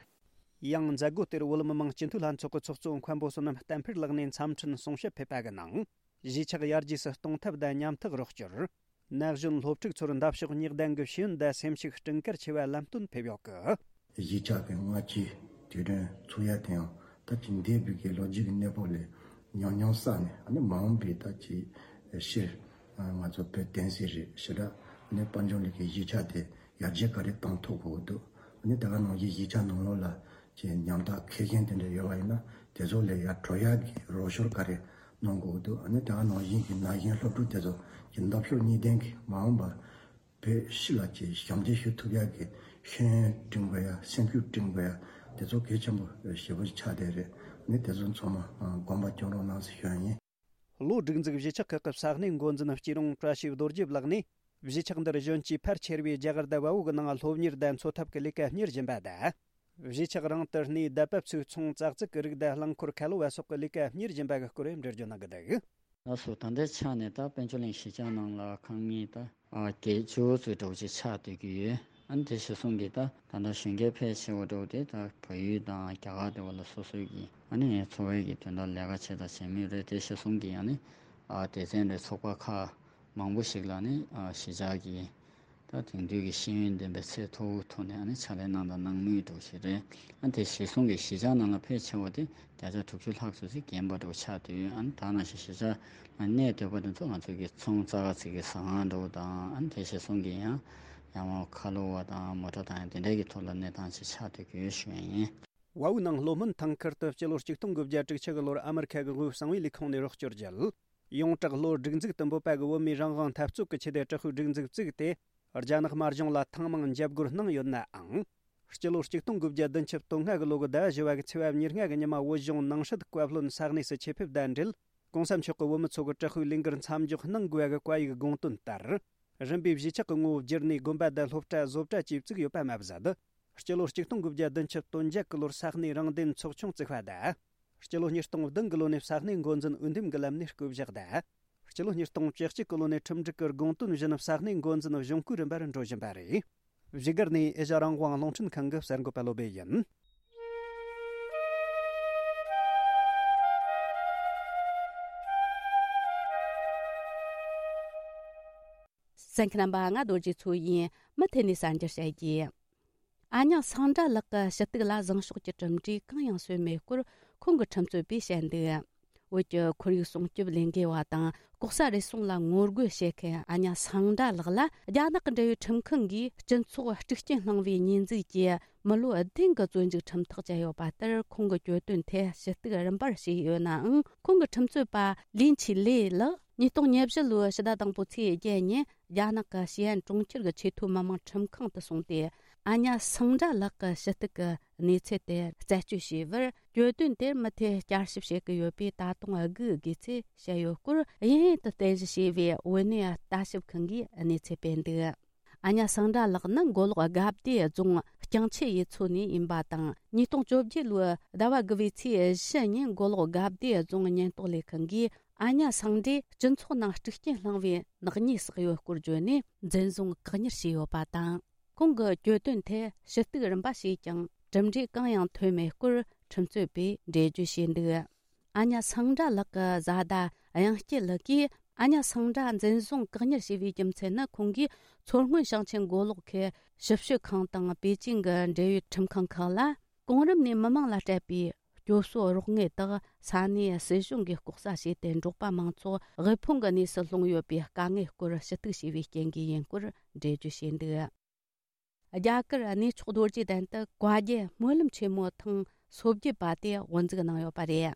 ཡང་མཛད་སྒོ་དེར་བོད་མི་མང་སྤྱི་འཐུས་ལྷན་ཚོགས་ཀྱི་ཚོགས་གཙོ་མཁན་པོ་བསོད་ནམས་བསྟན་འཕེལ་ལགས་ནས་འཚམས་འཕྲིན་གསུང་བཤད་ཕེབས་པ་གི་ནང་། གཞིས་ཆགས་ཡར་རྒྱས་སུ་གཏོང་ཐབས་དང་ཉམ་ཐག་རོགས་སྐྱོར། ན་གཞོན་སློབ་ཕྲུག་ཚོར་འདབ་གཤོག་སྙེག་ལྡན་གྱི་ཤེས་ཡོན་དང་སེམས་ཤུགས་སྤྲིན་དཀར་ཆེ་བ་ལམ་སྟོན་ཕེབས་ཡོད་གི། གཞིས་ཆགས་ཀྱི་སྔ་ཕྱིའི་དུས་དྲན་ཚུགས་ཡ་དེ་ཡང་ད་ཅིག་འདས་པའི་གི་ལོ་རྒྱུས་ཀྱི་གནས་བབ་ལས་ཉམས་མྱོང་བསགས་ནས། ཨ་ནི་མ་འོངས་པའི་ད་ཅིག་ཕྱིར་ང་ཚོ་བོད་བསྟན་སྲིད་རེད། ཞེ་དྲག་ནས་དཔལ་འབྱོར་གླིང་གི་གཞིས་ཆགས་དེ་ཡར་རྒྱས་ག་རེ་བཏང་ཐུབ་དགོས་འདུག་ཨ་ནི་དེ་ག་ནང་བཞིན་གཞིས་ཆགས་ནང་ལོགས་ལ་ཅིག་ཉམ་ཐག་མཁས་ཤེས་དེ་འདྲ་ཡོད་པ་ཡིན་ན་དེ་ཚོ་ལ་ཡར་འགྲོ་ཡག་གི་རོགས་སྐྱོར་ག་རེ་གནང་དགོས་འདུག་ཨ་ནི་དེ་ག་ནང་བཞིན་གྱི་ན་གཞོན་སློབ་ཕྲུག་དེ་ཚོ་གི་འདབ་གཤོག་སྙེག་ལྡན་གྱི་མ་འོངས་པར་བོད་ཕྱི་ལ་ཅིག་ཞབས་འདེགས་ཞུ་ཐུབ་ཡག་གི་ཤེས་ཡོན་སྤྲིང་དགོས་ཡ། སེམས་ཤུགས་སྤྲིང་དགོས་ཡ། དེ་ཚོ་གལ་ཆེན་པོ་ཞེ་པོ་ཆགས་བསྡད་རེད། ནི་དེ་ཚོ་ཚང་མ་དགོངས་པ་སྐྱོང་རོགས་གནང་ཟེར་ཞུ་ཡ་ཡིན། ལྷོ་སྒྲིག་འཛུགས་གཞིས་ཆགས་ཁག་གི་ས་གནས་འགོ་འཛིན་སྐྱིད་རོང་བཀྲ་ཤིས་རྡོ་རྗེ་ལགས་ནས། གཞིས་ཆགས་འདིར་གཞོན་སྐྱེས་ཕལ་ཆེ་བས་རྒྱ་གར་དང་བལ་པོ་གི་ནང་སློབ་གཉེར་དང་འཚོ་ཐབས་ཀྱི་ལས་ཀ་གཉེར་བཞིན་པ་དང་། གཞིས་ཆགས་རང་དུ་གནས་དད་པ་ཕྱུག་ཚོང་ཙག་ཙིག་གི་རིགས་དང་རླངས་འཁོར་ཁ་ལོ་བ་སོགས་ཀྱི་ལས་ཀ་གཉེར་བཞིན་པ་གི་སྐོར་འགྲེལ་བརྗོད་གནང་གི་འདུག། ལགས་སོ། ད་ལྟའི་ཆ་ནས་ད་དཔལ་འབྱོར་གླིང་གཞིས་ཆགས་ནང་ལ་ཁང་མིག་ད་ཨ་བརྒྱད་ཅུ་ཙམ་འདྲ་བོ་ཅིག་ཆགས་སྡོད་ཀྱི་ཡོད། ཨ་ནི་དེ་གཞིར་བཟུང་གིས་ད་ད་ལྟ་གཞོན་སྐྱེས་ཕལ་ཆེ་བ་འདྲ་བོ་དེ་ད་བལ་ཡུལ་དང་རྒྱ་གར་དེ་བ་ལ་སོ་སོའི་གི་ཨ་ནི་འཚོ་བའི་གི་དོན་དག་ལས་ཀ་བྱེད་དང་བྱེད་མུས་རེད། དེ་གཞིར་བཟུང་གིས་ཨ་ནི་ཨ་སྡེ་ཚན་རེད། ཚོགས་པ་ཁག་མང་པོ་ཞིག་ལ་ནི་ཨ་གཞིས་ཆགས་ཀྱི་ད་དེང་དུས་ཀྱི་ཤེས་ཡོན་ལྡན་པའི་ཚད་མཐོ་བོའི་ཐོག་ནས་ཨ་ནི་ཕྱག་ལས་གནང་དང་གནང་མུས་འདྲ་བོ་ཞིག་རེད། ཨ་དེ་གཞིར་བཟུང་གིས་གཞིས་ཆགས་ནང་ལ་ཕལ་ཆེ་བ་དེ་བརྒྱ་ཆ་དྲུག་ཅུ་ལྷག་ཙམ་ཞིག་རྒན་པ་འདྲ་བོ་ཆགས་དུས། ཨ་ནི་ད་ནང་བཞིན་གཞིས་ཆགས་ལ་གནས་སྡོད་པ་དེ་ཚོ་ང་ཚོ་གི་ཚོང་ཙག་ཙིག་གི་ཟ་ཁང་འདྲ་བོ་དང་། ཨ་ནི་དེ་གཞིར་བཟུང་གིས་ཡང་ཡང་མོ་ཁ་ལོ་བ་དང་མོ་ཊ་དང་ཡང་དེ་འདྲའི་གི་ཐོག་ལ་གནས་སྟངས་ཅིག་ཆགས་སྡོད་ཀྱི་ཡོད་ཞུ་ཡ་ཡིན། བལ་པོའི་ནང་ལྷོ་སྨད་ཐང་ཁུལ་དུ་སྤྱི་ལོ་ཆིག་སྟོང་དགུ་བརྒྱ་དྲུག་ཅུ་གི་ལོར་ཨ་མི་རི་ཁ་གི་དབུས་གསང་བའི་ལས་ཁུངས་ནས་རོགས་སྐྱོར་བརྒྱུད། ཡོངས་གྲགས་ལྷོ་སྒྲིག་འཛུགས་དུ་འབོད་པ་གི་བོད་མིའི་རང་དབང་འཐབ་རྩོད་ཀྱི་ཆེད་དུ་དྲག་པོའི་སྒྲིག་འཛུགས་བཙུགས་ཏེ། རྒྱ་ནག་དམར་གཞུང་ལ་ཐེངས་མང་འཇབ་རྒོལ་གནང་ཡོད་ནའང་། སྤྱི་ལོ་ཆིག་སྟོང་དགུ་བརྒྱ་བདུན་ཅུ་དོན་ལྔ་གི་ལོ་གི་ཟླ་བ་བཞི་བ་གི་ཚེས་པ་ཉེར་ལྔ་གི་ཉི་མ་བོད་གཞུང་ནང་སྲིད་བཀའ་བློན་ས་གནས་སུ་ཆེད་ཕེབས་དང་འབྲེལ། གོང་ས་མཆོག་གིས་བོད་མི་ཚོ་གི་དྲག་པོའི་ལས་འགུལ་མཚམས་འཇོག་གནང་དགོས་པ་གི་བཀའ་ཡིག་དགོངས་དོན་ལྟར། རིམ་པས་གཞིས་ཆགས་ཀྱི་ངོ་བོ་བསྒྱུར་ནས་དགོན་པ་དང་སློབ་གྲྭ་བཟོ་གྲྭ་བཅས་བཙུགས་ཡོད་པ་མ་ཟད། སྤྱི་ལོ་ཆིག་སྟོང་དགུ་བརྒྱ་བདུན་ཅུ་དོན་བརྒྱད་གི་ལོར་ས་གནས་རང་བདེན་ཚོགས་ཆུང་བཙུགས་པ་དང་། སྤྱི་ལོ་ཉིས་སྟོང་བདུན་གི་ལོ་ནས་ས་གནས་འགོ་འཛིན་འོས་འདེམས་ཀྱི་ལམ་ནས་བསྐོ་བཞག་དང་། སྤྱི་ལོ་ཉིས་སྟོང་བཅུ་གཅིག་གི་ལོ་ནས་ཁྲིམས་སྒྲིག་གི་དགོངས་དོན་བཞིན་ས་གནས་འགོ་འཛིན་གཞུང་སྐུའི་རིམ་པར་འགྲོ་བཞིན་པ་རེད། བཞུགས་སྒར་ནས་ཨེ་ཤ་རང་དབང་རླུང་འཕྲིན་ཁང་གི་གསར་འགོད་པ་བློ་བྷེ་ཡིན། གསན་མཁན་རྣམ་པ། ང་རྡོ་རྗེ་མཚོ་ཡིན། མུ་མཐུད་ནས་གསར་འགྱུར་བཤད་རྒྱུ། ཨ་ཉག་སངས་དགྲ་ལགས་ཀྱི་ཞུ་གཏུག་ལ་བཟང་ཕྱོགས་ཀྱི་གྲུབ་འབྲས་གང་ཡང་སོན་མེད་སྐོར་ཁོང་གི་ཁྲིམས་རྩོད་པས་བཤད་འདུག། བོད་ཀྱི་ཁོར་ཡུག་སྲུང་སྐྱོབ་ལས་འགུལ་བ་དང་ལྐོག་ཟ་རུལ་སུངས་ལ་ངོ་རྒོལ་བྱེད་མཁན་ཨ་ཉག་སངས་དགྲ་ལགས་ལ་རྒྱ་ནག་གི་འབྲེལ་ཡོད་ཁྲིམས་ཁང་གིས་སྤྱི་ཚོགས་དཀྲུག་རྐྱེན་བསླངས་པའི་ཉེས་འཛུགས་ཀྱིས་མི་ལོ་བདུན་གྱི་བཙོན་འཇུག་ཁྲིམས་ཐག་བཅད་ཡོད་པ་ལྟར། ཁོང་གི་གྱོད་དོན་ཐད་ཞུ་གཏུག་རིམ་པར་བྱས་ཡོད་ནའང་། ཁོང་གི་ཁྲིམས་རྩོད་པ་ལིན་ཆི་ལེ་ལགས་ཉིས་སྟོང་ཉེར་བཞི་ལོའི་ཕྱི་ཟླ་དང་པོའི་ཚེས་བརྒྱད་ཉིན་རྒྱ་ནག་གི་ཞི་ཨན་གྲོང་ཁྱེར་གྱི་ཆེས་མཐོའི་མི་དམངས་ཁྲིམས་ཁང་དུ་སོང་སྟེ། ཨ་ཉག་སངས་དགྲ་ལགས་ཀྱི་ཞུ་གཏུག་གི་གནས་ཚུལ་དེ་རྩད་གཅོད་བྱས་པར། གྱོད་དོན་དེར་མུ་མཐུད་བསྐྱར་ཞིབ་བྱེད་ཀྱི་ཡོད་པས། ད་དུང་སྒུག་དགོས་ཚུལ་བཤད་ཡོད་སྐོར། ཡིན་ཡིན་དུ་རྟེན་གཞི་བྱས་པའི་བོད་གནས་ལྟ་ཞིབ་ཁང་གིས་གནས་ཚུལ་སྤེལ་འདུག། ཨ་ཉག་སངས་དགྲ་ལགས་ནི་མགོ་ལོག་དགའ་བདེ་རྫོང་རྐྱང་ཆུ་ཡུལ་ཚོ་ནས་ཡིན་པ་དང་། ཉིས་སྟོང་བཅོ་བརྒྱད་ལོའི་ཟླ་བ་དགུ་པའི་ཚེས་བཞི་ཉིན་མགོ་ལོག་དགའ་བདེ་རྫོང་ཉེན་རྟོག་ལས་ཁང་གིས་ཨ་ཉག་སངས་དགྲས་སྤྱི་ཚོགས་ནང་དཀྲུག་རྐྱེན་བསླངས་པའི་ནག་ཉེས་བསགས་ཡོད་སྐོར་བརྗོད་ནས་འཛིན་བཟུང་བཀག་ཉར་བྱས་ཡོད་པ་དང་། ཁོང་གི་གྱོད་དོན་ཐད་ཞུ་གཏུག་རིམ་པ་བྱས་ཀྱང་གྲུབ་འབྲས་གང་ཡང་ཐོན་མེད་སྐོར་ཁྲིམས་རྩོད་པས་འགྲེལ་བརྗོད་བྱས་འདུག། ཨ་ཉག་སངས་དགྲ་ལགས་ཀྱི་བཟའ་ཟླ་གཡང་སྐྱིད་ལགས་ཀྱིས། ཨ་ཉག་སངས་དགྲ་འཛིན་བཟུང་བཀག་ཉར་བྱས་པའི་རྒྱུ་མཚན་ནི། ཁོང་གིས་མཚོ་སྔོན་ཞིང་ཆེན་མགོ་ལོག་ཁུལ་ཞིབ་དཔྱོད་ཁང་དང་པེ་ཅིང་གི་འབྲེལ་ཡོད་ཁྲིམས་ཁང་ཁག་ལ། གོང་རིམ་ནས་མི་མང་ལ་སྤྲད་པའི་སྐྱོབ་གསོ་རོགས་དངུལ་དག་ས་གནས་སྲིད་གཞུང་གིས་ལྐོག་ཟ་བྱས་ཏེ། འབྲོག་པ་མང་ཚོགས་དབུལ་ཕོངས་ཀྱི་གནས་སུ་ལྷུང་ཡོད་པའི་དཀའ་ངལ་སྐོར་ཞུ་གཏུག་བྱས་པའི་རྐྱེན་གྱིས་ཡིན་སྐོར་འགྲེལ་བརྗོད་བྱས་འདུག། རྒྱ་གར་གནས་མཆོག་རྡོ་རྗེ་གདན་དུ་བཀའ་བརྒྱུད་སྨོན་ལམ་ཆེན་མོ་ཐེངས་སོ་བརྒྱད་པ་དེ་དབུ་འཛུགས་གནང་ཡོད་པ་རེད།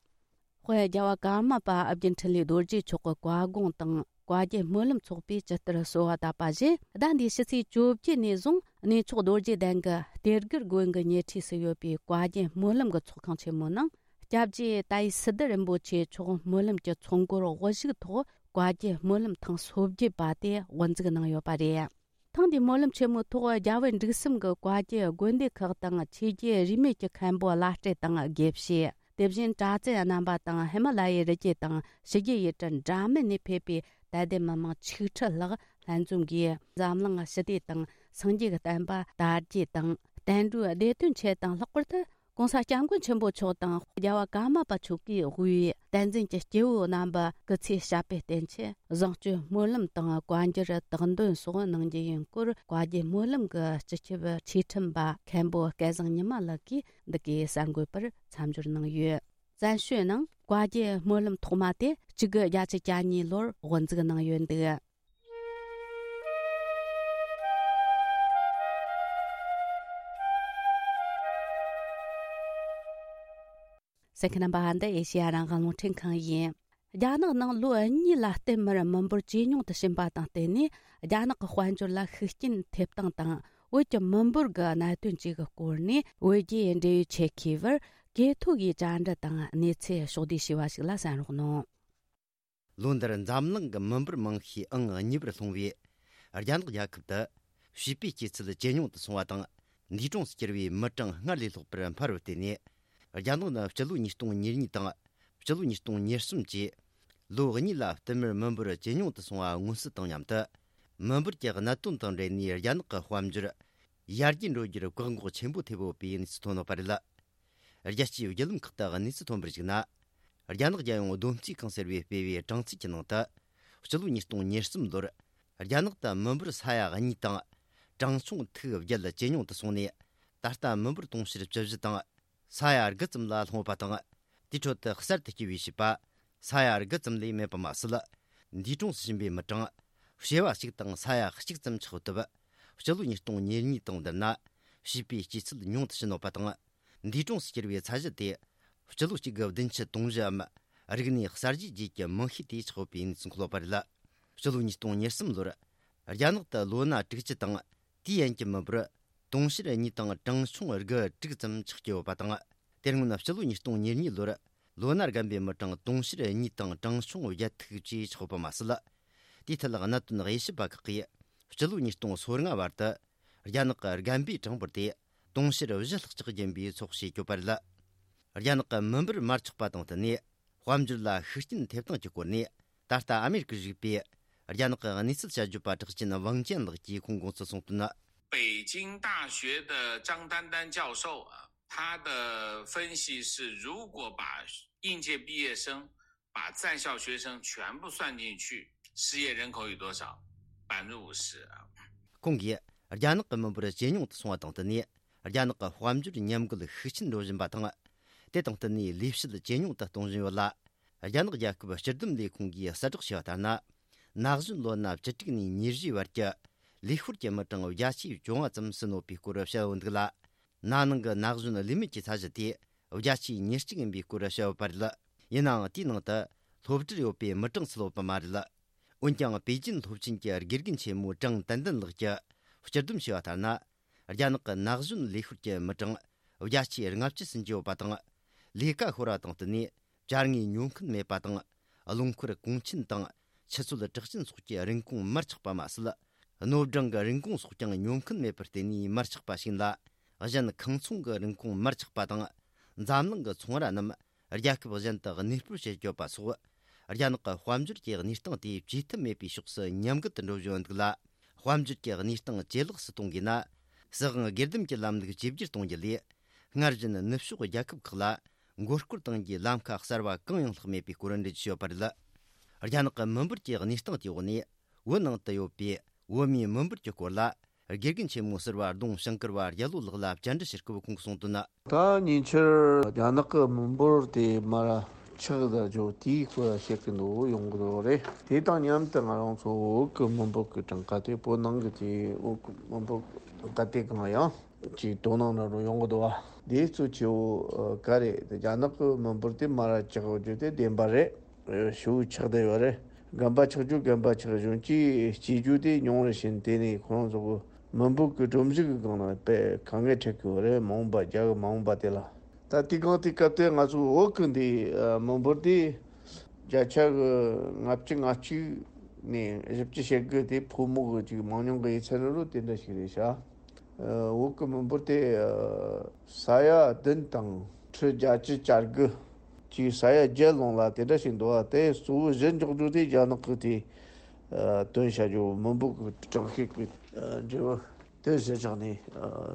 དཔལ་རྒྱལ་བ་ཀརྨ་པ་ཨ་བརྒྱུད་འཕྲིན་ལས་རྡོ་རྗེ་མཆོག་གི་བཀའ་དགོངས་དང་བཀའ་བརྒྱུད་སྨོན་ལམ་ཚོགས་པས་ཇི་ལྟར་གསོལ་བ་བཏབ་པ་བཞིན། ཟླ་འདིའི་ཕྱི་ཚེས་བཅོ་བརྒྱད་ནས་བཟུང་གནས་མཆོག་རྡོ་རྗེ་གདན་གྱི་གཏེར་སྒར་དགོན་གྱི་ཉེ་འཁྲིས་སུ་ཡོད་པའི་བཀའ་བརྒྱུད་སྨོན་ལམ་གྱི་ཚོགས་ཁང་ཆེན་མོའི་ནང་། སྐྱབས་རྗེ་ཏཱའི་སི་ཏུ་རིན་པོ་ཆེ་མཆོག་སྨོན་ལམ་གྱི་ཚོགས་འཁོར་དབུ་བཞུགས་ཐོག་བཀའ་བརྒྱུད་སྨོན་ལམ་ཐེངས་སོ་བརྒྱད་པ་དེ་དབུ་འཛུགས་གནང་ཡོད་པ་རེད། ཐེངས་འདིའི་སྨོན་ལམ་ཆེན་མོའི་ཐོག་རྒྱ་བལ་འབྲུག་གསུམ་གྱི་བཀའ་བརྒྱུད་དགོན་སྡེ་ཁག་དང་ཆོས་བརྒྱུད་རིས་མེད་ཀྱི་མཁན་པོ་བླ་སྤྲུལ་དང་དགེ་བཤེས། དེ་བཞིན་གྲྭ་བཙུན་རྣམ་པ་དང་ཧི་མ་ལ་ཡའི་རི་རྒྱུད་དང་ཕྱི་རྒྱལ་ཡུལ་གྲུ་འདྲ་མིན་ནས་ཕེབས་པའི་དད་ལྡན་མི་མང་ཆིག་ཁྲི་ལྷག་ལྷན་འཛོམས་ཀྱིས་འཛམ་གླིང་ཞི་བདེ་དང་སངས་རྒྱས་ཀྱི་བསྟན་པ་དར་རྒྱས་དང་། བསྟན་འགྲོའི་བདེ་དོན་ཆེད་དང་། ལྷག་པར་དུ་གོང་ས་སྐྱབས་མགོན་ཆེན་པོ་མཆོག་དང་རྒྱལ་བ་ཀརྨ་པ་མཆོག་གིས་དབུས་བསྟན་འཛིན་གྱི་སྐྱེས་བུ་རྣམ་པ་སྐུ་ཚེ་ཞབས་པད་བརྟན་ཆེད་བཟང་སྤྱོད་སྨོན་ལམ་དང་བཀའ་འགྱུར་དག་འདོན་སོགས་གནང་རྒྱུ་ཡིན་སྐོར། བཀའ་བརྒྱུད་སྨོན་ལམ་གྱི་སྤྱི་ཁྱབ་ཆོས་ཁྲིམས་པ་མཁན་པོ་སྐལ་བཟང་ཉི་མ་ལགས་ཀྱིས་འདི་གའི་གསར་འགོད་པར་མཚམས་སྦྱོར་གནང་ཡོད། བཙན་བྱོལ་ནང་བཀའ་བརྒྱུད་སྨོན་ལམ་ཐོག་མ་དེ་གཅིག་དགུ་བརྒྱད་ཅུ་གྱ་གཉིས་ལོར་དབུ་འཛུགས་གནང་ཡོད་འདུག། གསན་མཁན་རྣམ་པ། འདི་ཨེ་ཤེ་ཡ་རང་དབང་རླུང་འཕྲིན་ཁང་ཡིན། རྒྱ་ནག་ནང་ལོ་གཉིས་ལ་བརྟེན་མར་མི་འབོར་ཇེ་ཉུང་དུ་ཕྱིན་པ་དང་བསྟུན་ནས། རྒྱ་ནག་གི་དཔལ་འབྱོར་ལ་ཤུགས་རྐྱེན་ཐེབས་སྟངས་དང་ བོད་ཀྱི་མི་འབོར་གྱི་གནད་དོན་བཅས་ཀྱི་སྐོར་ནས་བོད་རྒྱའི་འབྲེལ་ཡོད་ཆེད་མཁས་པར་གོ་ཐོས་ཀྱིས་བཅར་འདྲི་དང་གནས་ཚུལ་ཕྱོགས་བསྡུས་ཞུས་པ་ཞིག་ལ་གསན་རོགས་གནང་། ལོ་འདིར་འཛམ་གླིང་གི་མི་འབོར་མང་ཤོས་ཨང་གཉིས་པར་ལྷུང་བའི་རྒྱ་ནག་རྒྱལ་ཁབ་ཏུ་བྱིས་པའི་སྐྱེས་ཚུལ་ཇེ་ཉུང་དུ་སོང་བ་དང་། འདས་གྲོངས་སུ་གྱུར་བའི་མི་གྲངས་སྔར་ལས་ལྷག་པར་འཕར་བར་བརྟེན་ནས། རྒྱ་ནག་ནི་སྤྱི་ལོ་ཉིས་སྟོང་ཉེར་གཉིས་དང་སྤྱི་ལོ་ཉིས་སྟོང་ཉེར་གསུམ་བཅས་ལོ་གཉིས་ལ་བསྟུད་མར་མི་འབོར་ཇེ་ཉུང་དུ་སོང་བ་མངོན་གསལ་དང་མཉམ་དུ། མི་འབོར་གྱི་གནད་དོན་དང་འབྲེལ་ནས་རྒྱ་ནག་གི་དཔལ་འབྱོར་ཡར་རྒྱས་འགྲོ་རྒྱུར་བཀག་འགོག་ཆེན་པོ་ཐེབས་ཡོད་པའི་གནས་ཚུལ་ཐོན་ཡོད་པ་རེད། རྒྱལ་སྤྱིའི་བརྒྱུད་ལམ་ཁག་ཏུ་གནས་ཚུལ་ཐོན་པར་གཞིགས་ན། རྒྱ་ནག་རྒྱལ་ཡོངས་བསྡོམས་རྩིས་ཁང་ཟེར་བས་སྤེལ་བའི་གྲངས་རྩིས་ཀྱི་ནང་དུ། སྤྱི་ལོ་ཉིས་སྟོང་ཉེར་གསུམ་ལོར་རྒྱ་ནག་ཏུ་མི་འབོར་ས་ཡ་གཉིས་དང་གྲངས་ཆུང་ཐིག་བརྒྱད་ཇེ་ཉུང་དུ་སོང་ནས། ད་ལྟ་མི་འབོར་དུང་ཕྱུར་བཅུ་བཞི་དང་ས་ཡ་དགུ་ཙམ་ལ་ལྷུང་བ་དང་། དེའི་ཁྲོད་དུ་གསར་དུ་སྐྱེས་པའི་བྱིས་པ་ས་ཡ་དགུ་ཙམ་ལས་མེད་པ་མ་ཟད། འདས་གྲོངས་སུ་ཕྱིན་པའི་མི་གྲངས་བྱེ་བ་གཅིག་དང་ས་ཡ་གཅིག་ཙམ་ཆགས་ཐུབ། སྤྱི་ལོ་ཉིས་སྟོང་ཉེར་གཉིས་དང་བསྡུར་ན་བྱིས་པའི་སྐྱེས་ཚུལ་ཉུང་དུ་ཕྱིན་ཡོད་པ་དང་། འདས་གྲོངས་སུ་གྱུར་བའི་ཚད་གཞི་དེ་སྤྱི་ལོ་གཅིག་དགུ་བདུན་ཅུ་དོན་བཞིའམ་རིག་གནས་གསར་བརྗེ་རྗེས་ཀྱི་མིང་ཤས་དེ་ཆགས་ཡོད་པའི་གནས་ཚུལ་འཁོད་ཡོད་པ་རེད། སྤྱི་ལོ་ཉིས་སྟོང་ཉེར་གསུམ་ལོར་རྒྱ་ནག་ཏུ་ལོ་ན་དྲུག་ཅུ་དང་དེའི་ཡན་གྱི་མི་འབོར་དུང་ཕྱུར་གཉིས་དང་གྲངས་ཆུང་དགུ་དྲུག་ཙམ་ཆགས་ཀྱི་ཡོད་པ་དང་། དེ་སྔོན་སྤྱི་ལོ་ཉིས་སྟོང་ཉེར་གཉིས་ལོར་ལོ་ན་རྒན་པའི་མི་གྲངས་དུང་ཕྱུར་གཉིས་དང་གྲངས་ཆུང་བརྒྱད་ཐིག་བཅས་ཆགས་ཡོད་པ་མ་ཟད། དེའི་ཐད་གནད་དོན་དབྱེ་ཞིབ་པ་ཁག་གིས་སྤྱི་ལོ་ཉིས་སྟོང་སོ་ལྔ་བར་དུ་རྒྱ་ནག་གི་རྒན་པའི་གྲངས་འབོར་དེ་དུང་ཕྱུར་བཞི་ལྷག་ཅིག་ཡིན་པའི་ཚོད་དཔག་བྱས་ཡོད་པ་རེད། རྒྱ་ནག་གི་མི་འབོར་མར་ཆག་པ་དང་བསྟུན་ནས་དཔལ་འབྱོར་ལ་ཤུགས་རྐྱེན་ཐེབས་སྟངས་ཀྱི་སྐོར་ནས། ད་ལྟ་ཨ་མེ་རི་ཀར་བཞུགས་པའི་རྒྱ་ནག་གི་གནས་ཚུལ་དཔྱད་བརྗོད་པ་གྲགས་ཅན་ཝང་ཅན་ལགས་ཀྱིས་ཁོང་དགོངས་ཚུལ་གསུངས་དོན། 北京大学的张丹丹教授啊，他的分析是，如果把应届毕业生、把在校学生全部算进去，失业人口有多少？百分之五十啊。 ཁོང་གིས་རྒྱ་ནག་གི་མི་འབོར་ཇེ་ཉུང་དུ་སོང་བ་དང་བསྟུན་ནས། རྒྱ་ནག་གི་དཔལ་འབྱོར་ཉམས་རྒུད་ཤུགས་ཆེན་འགྲོ་བཞིན་པ་དང་། དེ་དང་བསྟུན་ནས་ལས་བྱེད་ཇེ་ཉུང་དུ་གཏོང་བཞིན་ཡོད་ལ། རྒྱ་ནག་རྒྱལ་ཁབ་སྤྱི་བསྡོམས་ལས་ཁུངས་ཀྱིས་གསལ་བསྒྲགས་བྱས་པ་ལྟར་ན། ན་གཞོན་ལོ་ན་བཅུ་དྲུག་ནས་ཉེར་བཞིའི་བར་གྱི་ལས་ཤོར་གྱི་མི་གྲངས་བརྒྱ་ཆའི་བཅོ་ལྔ་ཙམ་ཟིན་ཡོད་པའི་སྐོར་བཤད་ཡོད་འདུག་ལ། ན་ནིང་གི་ན་གཞོན་ལས་མེད་ཀྱི་ཚད་གཞི་དེ་བརྒྱ་ཆའི་ཉེར་གཅིག་ཡིན་པའི་སྐོར་བཤད་ཡོད་པ་རེད། ཡིན་ནའང་དེའི་ནང་དུ་སློབ་གྲྭར་ཡོད་པའི་མི་གྲངས་ཚུད་ཡོད་པ་མ་རེད། འོན་ཀྱང་པེ་ཅིན་སློབ་ཆེན་གྱི་དགེ་རྒན་ཆེན་མོ་ཀྲང་ཏན་ཏན་ལགས་ཀྱིས་སྤྱིར་བསྡོམས་བྱས་པ་ལྟར་ན། རྒྱ་ནག་གི་ན་གཞོན་ལས་ཤོར་གྱི་མི་གྲངས་བརྒྱ་ཆའི་ལྔ་བཅུ་ཟིན་གྱི་ཡོད་པ་དང་། ལས་ཀ་ཤོར་བ་དང་བསྟུན་ནས་བཅར་དངོས་ཉོ་མཁན་མེད་པ་དང་། རླངས་འཁོར་གོང་ཆེན་དང་ཆུ་ཚོད་གྲགས་ཅན་སོགས་ཀྱི་རིན་གོང་མར་ཆག་པ་མ་ཟད། སྣོད་སྦྲང་གི་རིན་གོང་སོགས་ཀྱང་ཉོ་མཁན་མེད་པར་བརྟེན་ནས་མར་ཆག་པ་ཞིག་ཡིན་ལ། གཞན་ཁང་ཚོང་གི་རིན་གོང་མར་ཆག་པ་དང་། འཛམ་གླིང་གི་ཚོང་ར་རྣམས་རྒྱལ་ཁབ་གཞན་དུ་གནས་སྤོར་བྱེད་དགོས་པ་སོགས། རྒྱ་ནག་གི་དཔལ་འབྱོར་གྱི་གནས་སྟངས་དེ་བཅོས་ཐབས་མེད་པའི་ཕྱོགས་སུ་ཉམས་རྒུད་དུ་འགྲོ་བཞིན་ཡོད་འདུག་ལ། དཔལ་འབྱོར་གྱི་གནས་སྟངས་ཇེ་ལེགས་སུ་གཏོང་དགོས་ན། སྲིད་དབང་སྒེར་སྡེམ་གྱི་ལམ་ལུགས་བཅོས་བསྒྱུར་གཏོང་རྒྱུ་ལས། སྔར་བཞིན་ནུབ་ཕྱོགས་རྒྱལ་ཁབ་ཁག་ལ་མགོ་སྐོར་གཏོང་རྒྱུའི་ལམ་ཁ་གསར་བ་གང་ཡང་ལྷག་མེད་པའི་སྐོར་འགྲེལ་བརྗོད་བྱས་ཡོད་པ་རེད། རྒྱ་ནག་གི་མི་འབོར་གྱི་གནས་སྟངས་དེའི་འོག་ནས། བོད་ནང་དུ་ཡོད་པའི་བོད་མིའི་མི་འབོར་གྱི་སྐོར་ལ། དགེ་རྒན་ཆེན་མོ་ཟུར་པ་ལྡོང་ཞིང་ཀར་བ་རྒྱལ་ལོ་ལགས་ལ་བཅར་འདྲི་བྱེད་སྐབས་ཁོང་གིས་གསུངས་དོན། ད་ཉེ་ཆར་རྒྱ་ནག་གི་མི་འབོར་དེ་མར་ཆག་ད་འཇོག་དེའི་སྐོར་བཤད་ཀྱི་འདུག་ཡོང་གི་འདུག་རེད། དེ་དང་མཉམ་དུ་ང་རང་ཚོ་བོད་ཀྱི་མི་འབོར་གྱི་གྲངས་ཀ་དེ། བོད་ནང་གི་དེ་བོད་ཀྱི་མི་འབོར་གྲངས་ཀ་དེ་གང་ཡང་ཅིག་དོ་སྣང་འདྲ་པོ་ཡོང་གི་འདུག་བ། དེ་གཙོ་ཆེ་བོ་ག་རེད། རྒྱ་ནག་གི་མི་འབོར་དེ་མར་ཆག་འཇོག་དེ་བདེན་པ་རེད། ཞེ་པོ་ཆག་བསྡད་ཡོད་རེད། རྒན་པ་ཆག་རྒྱུ་རྒན་པ་ཆག་གཞོན་སྐྱེས་སྐྱེ་རྒྱུ་དེ་ཉུང་རུ་ཕྱིན། དེ་ནས་ཁོ་རང་ཚོ་གི་མི་འབོར་གྱི་སྒྲོམ་གཞི་གི་སྒང་ལ་དཔེ་དཀའ་ངལ་འཕྲད་ཀྱི་ཡོད་རེད། མ་འོངས་པ་རྒྱ་གི་མ་འོངས་པ་དེ་ལ། ད་དེ་གང་དེ་སྐབས་དེ་ང་ཚོ་བོད་གི་འདི་མི་འབོར་དེ་བརྒྱ་ཆ་གི་ལྔ་བཅུ་ང་གཅིག་ནས་བཞི་བཅུ་ཞེ་དགུ་དེ་ཕོ་མོ་གི་ཅིག་མང་ཉུང་གི་ཡིན་ཚད་ནི་རུ་དེ་འདྲ་ཞིག་རེད་ཤག་བོད་ཀྱི་མི་འབོར་དེ་ས་ཡ་བདུན་དང་ཁྲི་བརྒྱད་ཅུ་གྱ་དགུ་ཅིག་ས་ཡ་བརྒྱད་ལོངས་ལ་དེ་འདྲ་ཞིག་འདུག་བ། དེ་གཙོ་བོ་གཞི་འཇོག་རྒྱུ་དེ་རྒྱ་ནག་གི་དེ་བཏོན་བྱ་རྒྱུ་མི་འབོར་གྱི་གྲངས་ཤིག་གི་འབྲས་བུ་དེ་གཞི་བཞག་ནས་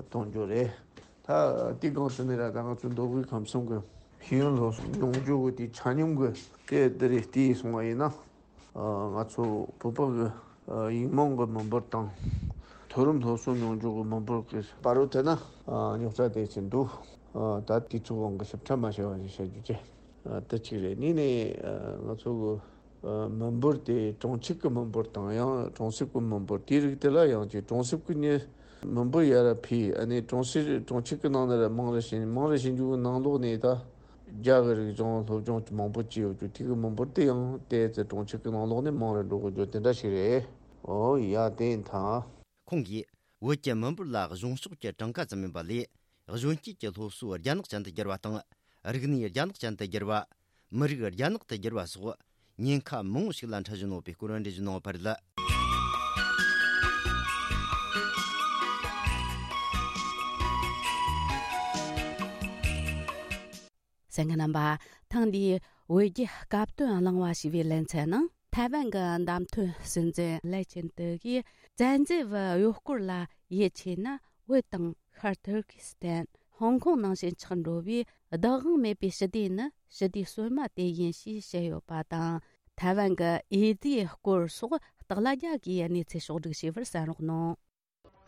གཏོང་རྒྱུ་རེད། ད་དེ་གང་ཟེར་ནས་ར་ད་ང་ཚོ་མདོ་དབུས་ཁམས་གསུམ་གྱི་ཤེས་ཡོན་སློབ་གསོ་མྱོང་རྒྱུ་གི་དེ་ཆ་སྙོམས་གི་དེ་དེ་རེད། དེ་སོང་བ་ཡིན་ན། ང་ཚོ་བོད་པ་གི་ཡིག་རྨོངས་གི་མི་འབོར་དང་། མཐོ་རིམ་སློབ་གསོ་མྱོང་རྒྱུ་གི་མི་འབོར་གི་བར་རུ་དེ་ན་རྙོག་དྲ་དེ་ཚོ་འདུག་ད་དུས་ཚོད་དབང་གིས་ཞིབ་ཕྲ་མ་བཤད་པ་ཞིག་བཤད་རྒྱུ་བྱས། དེ་གཅིག་རེད། གཉིས་ནས་ང་ཚོ་གི་མི་འབོར་དེ་གྲོང་ཁྱེར་གི་མི་འབོར་དང་ཡང་གྲོང་གསེབ་གི་མི་འབོར་དེའི་རིགས་དེ་ལ་ཡང་ཅིག་གྲོང་གསེབ་གི་ནི་མི་འབོར་ཡར་འཕེལ། ཨ་ནི་གྲོང་གསེབ་གྲོང་ཁྱེར་གི་ནང་ནས་ར་མང་རུ་ཕྱིན། མང་རུ་ཕྱིན་རྒྱུ་གི་ནང་ལོགས་ནས་ད། རྒྱ་གི་རིག་གཞུང་སློབ་སྦྱོང་མང་པོ་བྱས་ཡོད་རྒྱུ་དེ་གི་མི་འབོར་དེ་ཡང་ཏོག་ཙམ་གྲོང་ཁྱེར་གི་ནང་ལོགས་ནས་མང་རུ་འགྲོ་གི་རྒྱུ་དེ་འདྲ་ཞིག་རེད། ཨོ་ཡ། དེ་ཡིན་ད། ཁོང་གིས་ བོད་ཀྱི་མི་འབོར་ལ་གཞུང་ཕྱོགས་ཀྱི་གྲངས་ཀ་ཙམ་ཡིན་པ་ལས། གཞོན་སྐྱེས་ཀྱི་སློབ་གསོ་རྒྱ་ནག་ཅན་དུ་བསྒྱུར་བ་དང་། རིག་གནས་རྒྱ་ནག་ཅན་དུ་བསྒྱུར་བ། མི་རིགས་རྒྱ་ནག་ཏུ་བསྒྱུར་བ་སོགས་ཉེན་ཁ་མང་བོ་ཞིག་ལ་འཕྲད་བཞིན་ཡོད་པའི་སྐོར་འགྲེལ་བརྗོད་གནང་བ་རེད། གསན་མཁན་རྣམ་པ། ཐེངས་འདིའི་བོད་རྒྱའི་སྐབས་དོན་གླེང་བ་ཞེས་པའི་ལེ་ཚན་ནང་། ཐའེ་ཝན་གྱི་བདམས་ཐོན་སྲིད་འཛིན་ལེ་ཆིན་ཏེ་གིས་བཙན་འཛུལ་བའི་གཡོག་སྐོར་ལ་ཡིད་ཆེས་ན། བོད་དང་ཤར་ཐུར་ཀི་སི་ཐན། ཧོང་ཀོང་ནང་བཞིན་ཆགས་འགྲོ་བའི་བདག་དབང་མེད་པའི་ཞི་བདེ་ནི་ཞི་བདེ་སོ་མ་དེ་ཡིན་ཞེས་བཤད་ཡོད་པ་དང་། ཐའེ་ཝན་གྱི་འོས་བསྡུའི་སྐོར་སོགས་སྟག་ལྷ་རྒྱལ་གྱིས་གནས་ཚུལ་ཕྱོགས་བསྒྲིགས་བྱས་པར་གསན་རོགས་གནང་།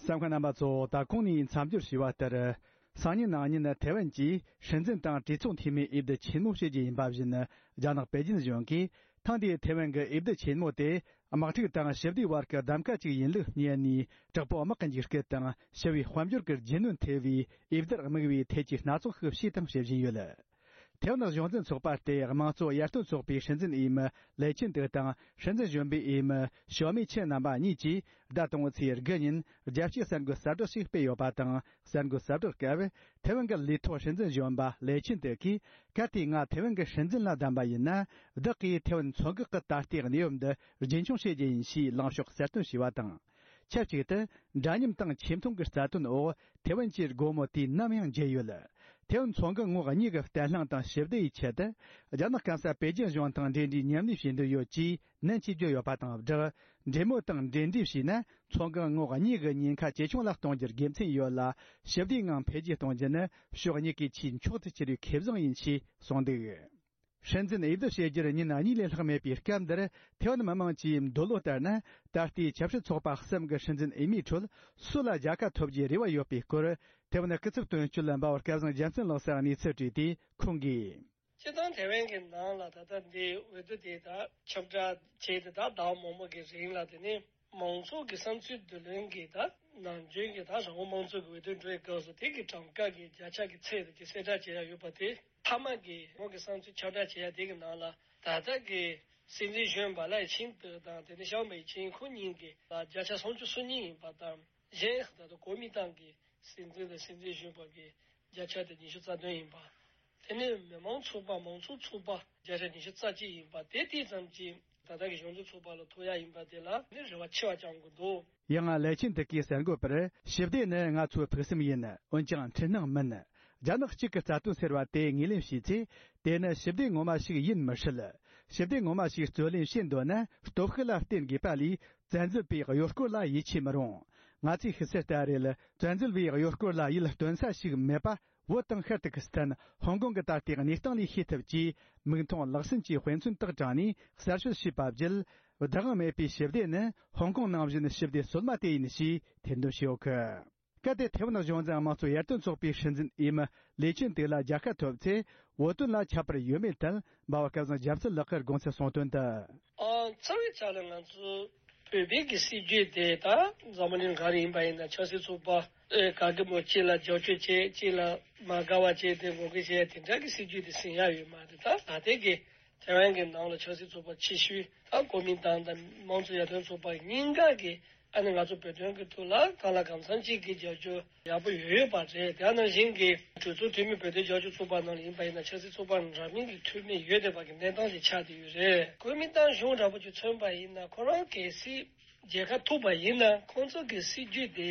གསན་མཁན་རྣམ་པ་ཚོ། ད་གོང་ནས་མཚམས་སྦྱོར་ཞུས་པ་ལྟར། སང་ཉིན་གནངས་ཉིན་ཐའེ་ཝན་གྱིས་སྲིད་འཛིན་དང་གྲོས་ཚོགས་འཐུས་མིའི་འོས་བསྡུ་ཆེན་མོ་བྱེད་རྒྱུ་ཡིན་པ་བཞིན། རྒྱ་ནག་པེ་ཅིན་གཞུང་གིས་ཐེངས་འདིའི་ཐའེ་ཝན་གྱི་འོས་བསྡུ་ཆེན་མོ་དེ་དམག་འཁྲུག་དང་ཞི་བདེའི་བར་གྱི་གདམ་ག་ཅིག་ཡིན་ལུགས་བསྙད་ནས། དྲག་པོའི་དམག་གི་འཇིགས་སྐུལ་དང་ཞི་བའི་དཔལ་འབྱོར་གྱི་རྒྱུ་ནོར་ཐེ་བའི་འོས་བསྡུར་དམིགས་བའི་ཐད་ཀྱི་སྣ་ཚོགས་ཤིག་བྱས་དང་བྱེད་བཞིན་ཡོད། ཐའེ་ཝན་གཞུང་འཛིན་ཚོགས་པ་སྟེ་དམངས་གཙོ་ཡར་ཐོན་ཚོགས་པའི་སྲིད་འཛིན་འོས་མི་ལེ་ཆིན་ཏེ་དང་སྲིད་འཛིན་གཞོན་པའི་འོས་མི་ཞའོ་མེ་ཆིན་རྣམ་པ་གཉིས་ཀྱིས་ཟླ་དང་པོའི་ཚེས་དགུ་ཉིན་རྒྱལ་སྤྱིའི་གསར་འགོད་གསལ་བསྒྲགས་ཤིག་སྤེལ་ཡོད་པ་དང་། གསར་འགོད་གསལ་བསྒྲགས་སྐབས། ཐའེ་ཝན་གྱི་ལས་ཐོག་སྲིད་འཛིན་གཞོན་པ་ལེ་ཆིན་ཏེ་གིས། གལ་ཏེ་ང་ཐའེ་ཝན་གྱི་སྲིད་འཛིན་ལ་བདམས་པ་ཡིན་ན། བདག་གིས་ཐའེ་ཝན་མཚོ་འགག་གི་ད་ལྟའི་གནས་བབ་འདི་རྒྱུན་འཁྱོངས་བྱེད་རྒྱུ་ཡིན་ཞེས་ལངས་ཕྱོགས་གསལ་སྟོན་བྱས་པ་དང་། ཆབས་ཅིག་ཏུ། འདྲ་མཉམ་དང་ཆེ་མཐོང་གི་རྩ་དོན་འོག་ཐའེ་ཝན་གྱི་སྒོ་མོ་དུས་ནམ་ཡང་འབྱེད་ཡོད། ཐའེ་ཝན་མཚོ་འགག་ངོགས་གཉིས་ཀྱི་བརྟན་ལྷིང་དང་ཞི་བདེ་ཡི་ཆེད་དུ། རྒྱ་ནག་སྐམ་ས་པེ་ཅིན་གཞུང་དང་འབྲེལ་འདྲིས་མཉམ་ལས་བྱེད་འདོད་ཡོད་ཅེས་ནན་གྱིས་བརྗོད་ཡོད་པ་དང་སྦྲགས། འབྲེལ་མོལ་དང་འབྲེལ་འདྲིས་བྱས་ན། མཚོ་འགག་ངོགས་གཉིས་ཀྱི་ཉེན་ཁ་ཇེ་ཆུང་ལ་གཏོང་རྒྱུར་དགེ་མཚན་ཡོད་ལ། ཞི་བདེའི་ངང་འཕེལ་རྒྱས་གཏོང་རྒྱུ་ནི་ཕྱོགས་གཉིས་ཀའི་ཆེས་མཆོག་ཏུ་གྱུར་བའི་ཁེ་བཟང་ཡིན་ཞེས་གསུངས་འདུག། སྲིད་འཛིན་འོས་བསྡུ་བྱེད་རྒྱུར་ཉིན་གཉིས་ལས་ལྷག་མེད་པའི་སྐབས་འདིར། ཐའེ་ཝན་མི་མང་གྱི་འདོད་བློ་ལྟར་ན། ད་ལྟའི་ཆབ་སྲིད་ཚོགས་པ་གསུམ་གྱི་སྲིད་འཛིན་འོས་མིའི་ཁྲོད་སུ་ལ་རྒྱལ་ཁ་ཐོབ་རྒྱུའི་རེ་བ་ཡོད་པའི་སྐོར། ཐའེ་ཝན་སྐུ་ཚབ་དོན་གཅོད་འབའ་བ་སྐལ་བཟང་རྒྱལ་མཚན་ལགས་སུ་གནས་ཚུལ་དྲིས་ཏེ་ཁོང་གིས། སྤྱིར་བཏང་ཐའེ་ཝན་གྱི་ནང་ལ་ད་ལྟ་འདི་འོས་བསྡུ་དེ་དག་ཁྱབ་བསྒྲགས་བྱས་ཏེ་ད་ཟླ་བ་མང་པོ་གི་རིང་ལ། དེ་ནས་མང་ཚོགས་ཀྱི་བསམ་ཚུལ་བསྡུ་ལེན་གྱི་ད་ནམ་རྒྱུན་གྱི་ད་རང་དབང་དམངས་གཙོ་གི་འོས་བསྡུ་འགྲོ་བའི་སྐབས་སུ་དེ་གི་གྲངས་ཀ་གི་བརྒྱ་ཆ་གི་ཚད་དེ་གསལ་བསྒྲགས་བྱེད་ཡ་ཡོད་པ་དེ། མཐའ་མ་གི་ཁོང་གི་བསམ་ཚུལ་ཁྱབ་བསྒྲགས་བྱེད་ཡ་དེ་གི་ནང་ལ། ད་ལྟ་གི་སྲིད་འཛིན་གཞོན་པ་ལའེ་ཆིན་ཏེ་དང་དེ་ནས་ཞའོ་མེ་ཆིན་ཁོ་གཉིས་ཀྱི་ལ་བརྒྱ་ཆ་སུམ་ཅུ་སོ་གཉིས་ཡིན་པ་དང་། གཞན་ད་ལྟ་གོ་མིན་ཏང་གི་སྲིད་འཛིན་དང་སྲིད་འཛིན་གཞོན་པ་གི་བརྒྱ་ཆ་དེ་ཉི་ཤུ་རྩ་བདུན་ཡིན་པ། དེ་ནས་མི་མང་ཚོགས་པ་མང་ཚོགས་ཚོགས་པ་བརྒྱ་ཆ་ཉི་ཤུ་རྩ་གཅིག་ཡིན་པ། དེ་དེ་ཙམ་གྱིས་ད་ལྟ་གི་གཞུང་འཛིན་ཚོགས་པ་ལ་ཐོབ་ཡ་ཡིན་པ་དེ་ལ་ནི་རེ་བ་ཆེ་བ་བཅང་དགོས་འདུག། ཡང་ལའེ་ཆིན་ཏེ་གིས་གསར་འགོད་པར། ཞི་བདེ་ནི་ང་ཚོའི་ཕུགས་བསམ་ཡིན། འོན་ཀྱང་འཕྲུལ་སྣང་མིན། རྒྱ་ནག་གཅིག་གི་རྩ་དོན་ཟེར་བ་དེ་ངོས་ལེན་བྱས་ཚེ། དེ་ནི་ཞི་བདེ་ངོ་མ་ཞིག་ཡིན་མི་སྲིད། ཞི་བདེ་ངོ་མ་ཞིག་རྩོད་ལེན་བྱེད་འདོད་ན་སྟོབས་ཤུགས་ལ་བརྟེན་དགོས་པ་ལས། བཙན་འཛུལ་པའི་གཡོ་སྐོར་ལ་ཡིད་ཆེས་མི་རུང་། ང་ཚོས་ཤེས་གསལ་ལྟར་རེད། བཙན་འཛུལ་པའི་གཡོ་སྐོར་ལ་ཡིད་རྟོན་ས་ཞིག་མེད་པ། བོད་དང་ཤར་ཏུར་ཀི་སི་ཐན། ཧོང་ཀོང་གི་ད་ལྟའི་གནས་སྟངས་ལས་ཤེས་ཐུབ་ཅེས། མིག་མཐོང་ལག་ཟིན་གྱི་དཔེ་མཚོན་དག་དྲངས་ནས་གསར་ཤོད་བྱས་པ་བརྒྱུད། བདག་དབང་མེད་པའི་ཞི་བདེ་ནི་ཧོང་ཀོང་ནང་བཞིན་ཞི་བདེ་སོ་མ་དེ་ཡིན་ཞེས་ཐེར་འདོན་བྱས་ཡོད་གི། གལ་ཏེ་ཐའེ་ཝན་གཞུང་འཛིན་དམངས་གཙོ་ཡར་ཐོན་ཚོགས་པའི་སྲིད་འཛིན་འོས་མི་ལའེ་ཆིན་ཏེ་ལ་རྒྱལ་ཁ་ཐོབ་ཚེ། བོད་དོན་ལ་ཁྱད་པར་ཡོད་མེད་ཐད། འབའ་བ་སྐལ་བཟང་རྒྱལ་མཚན་ལགས་ཀྱིས་དགོངས་ཚུལ་གསུངས་དོན་དུ། ཨ། རྩ་བའི་ཆ་ལ་ང་ཚོ་བོད་པའི་གི་སྲིད་ཇུས་དེ་ད་འཛམ་བུ་གླིང་ག་རེ་ཡིན་པ་ཡིན་ན། ཆབ་སྲིད་ཚོགས་པ་ཨེ་ག་གི་མོ་གཅིག་ལ་རྒྱབ་སྐྱོར་བྱེད། གཅིག་ལ་མ་དགའ་བ་བྱེད། དེ་ངོ་རྒོལ་བྱེད་དེ་འདྲ་གི་སྲིད་ཇུས་དེ་ཟིན་ཡ་ཡོད་མ་རེད། ད་ད་ལྟའི་གི་ཐའེ་ཝན་གྱི་ནང་ལ་ཆབ་སྲིད་ཚོགས་པ་ཆེ་ཤོས་ད་གོ་མིན་ཏང་དང་དམངས་གཙོ་ཡར་ཐོན་ཚོགས་པ་གཉིས་ཀ་གི་ཨ་ནི་ང་ཚོ་བོད་དོན་གྱི་ཐོག་ལ་གང་ལ་གང་འཚམ་ཅིག་གི་རྒྱབ་སྐྱོར་ཡག་པོ་ཡོད་ཡོད་པ་རེད། དེ་ནང་བཞིན་གྱི་གྲོས་ཚོགས་འཐུས་མི་བོད་དོན་རྒྱབ་སྐྱོར་ཚོགས་པ་ནང་ལ་ཡིན་པ་ཡིན་ན། ཆབ་སྲིད་ཚོགས་པ་འདྲ་མིན་གྱི་འཐུས་མི་ཡོད་བསྡད་པ་གི་གནས་སྟངས་ཅིག་ཆགས་བསྡད་ཡོད་རེད། གོ་མིན་ཏང་གཞུང་འདྲ་པོ་ཅིག་མཚོན་པ་ཡིན་ན། ཁོ་རང་གལ་སྲིད་རྒྱལ་ཁ་ཐོབ་པ་ཡིན་ན། ཁོང་ཚོ་གི་སྲིད་ཇུས་དེ་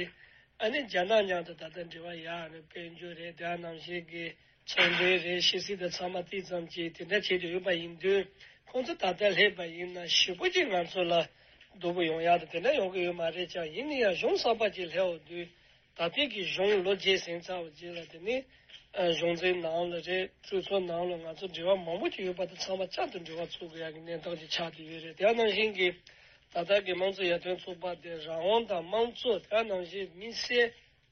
ཨ་ནི་རྒྱ་ནག་མཉམ་དུ་ད་ལྟ་འབྲེལ་བ་ཡག་ནས་དཔལ་འབྱོར་རེད། དེ་ནང་བཞིན་གྱི་ཚོང་དོན་རེད། ཕྱི་སྲིད་དང་ཚང་མ་དེ་ཙམ་གྱིས་དེ་འདྲ་བྱེད་དུ་ཡོད་པ་ཡིན་དུས། ཁོང་ཚོ་ད་ལྟ་སླེབས་པ་ཡིན་ན་ཞེ་པོ་ཅིག་ང་ཚོ་ལ་སྡུག་པོ་ཡོང་ཡག་དང་དེ་འདྲ་ཡོང་གི་ཡོད་མ་རེད་ཀྱང་། ཡིན་ན་ཡང་གཞུང་གསར་པ་ཅིག་སླེབས་འོང་དུས། ད་ལྟའི་གི་གཞུང་ལོ་བརྒྱད་ཟིན་ཚར་བ་རྗེས་ལ། དེ་ནི་ཨ་གཞུང་འཛིན་ནང་ལ་རེད། གྲོས་ཚོགས་ནང་ལ་ང་ཚོ་འབྲེལ་བ་མང་པོ་ཅིག་ཡོད་པ་དང་། ཚང་མ་བསྐྱར་དུ་འབྲེལ་བ་འཚོལ་དགོས་ཡག་གི་གནས་སྟངས་ཅིག་ཆགས་བསྡད་ཡོད་རེད། དེ་ནང་བཞིན་གྱི་ད་ལྟ་གི་དམངས་གཙོ་ཡར་ཐོན་ཚོགས་པ་དེ་རང་དབང་དང་དམངས་གཙོ། དེ་ནང་བཞིན་དམིགས་བསལ་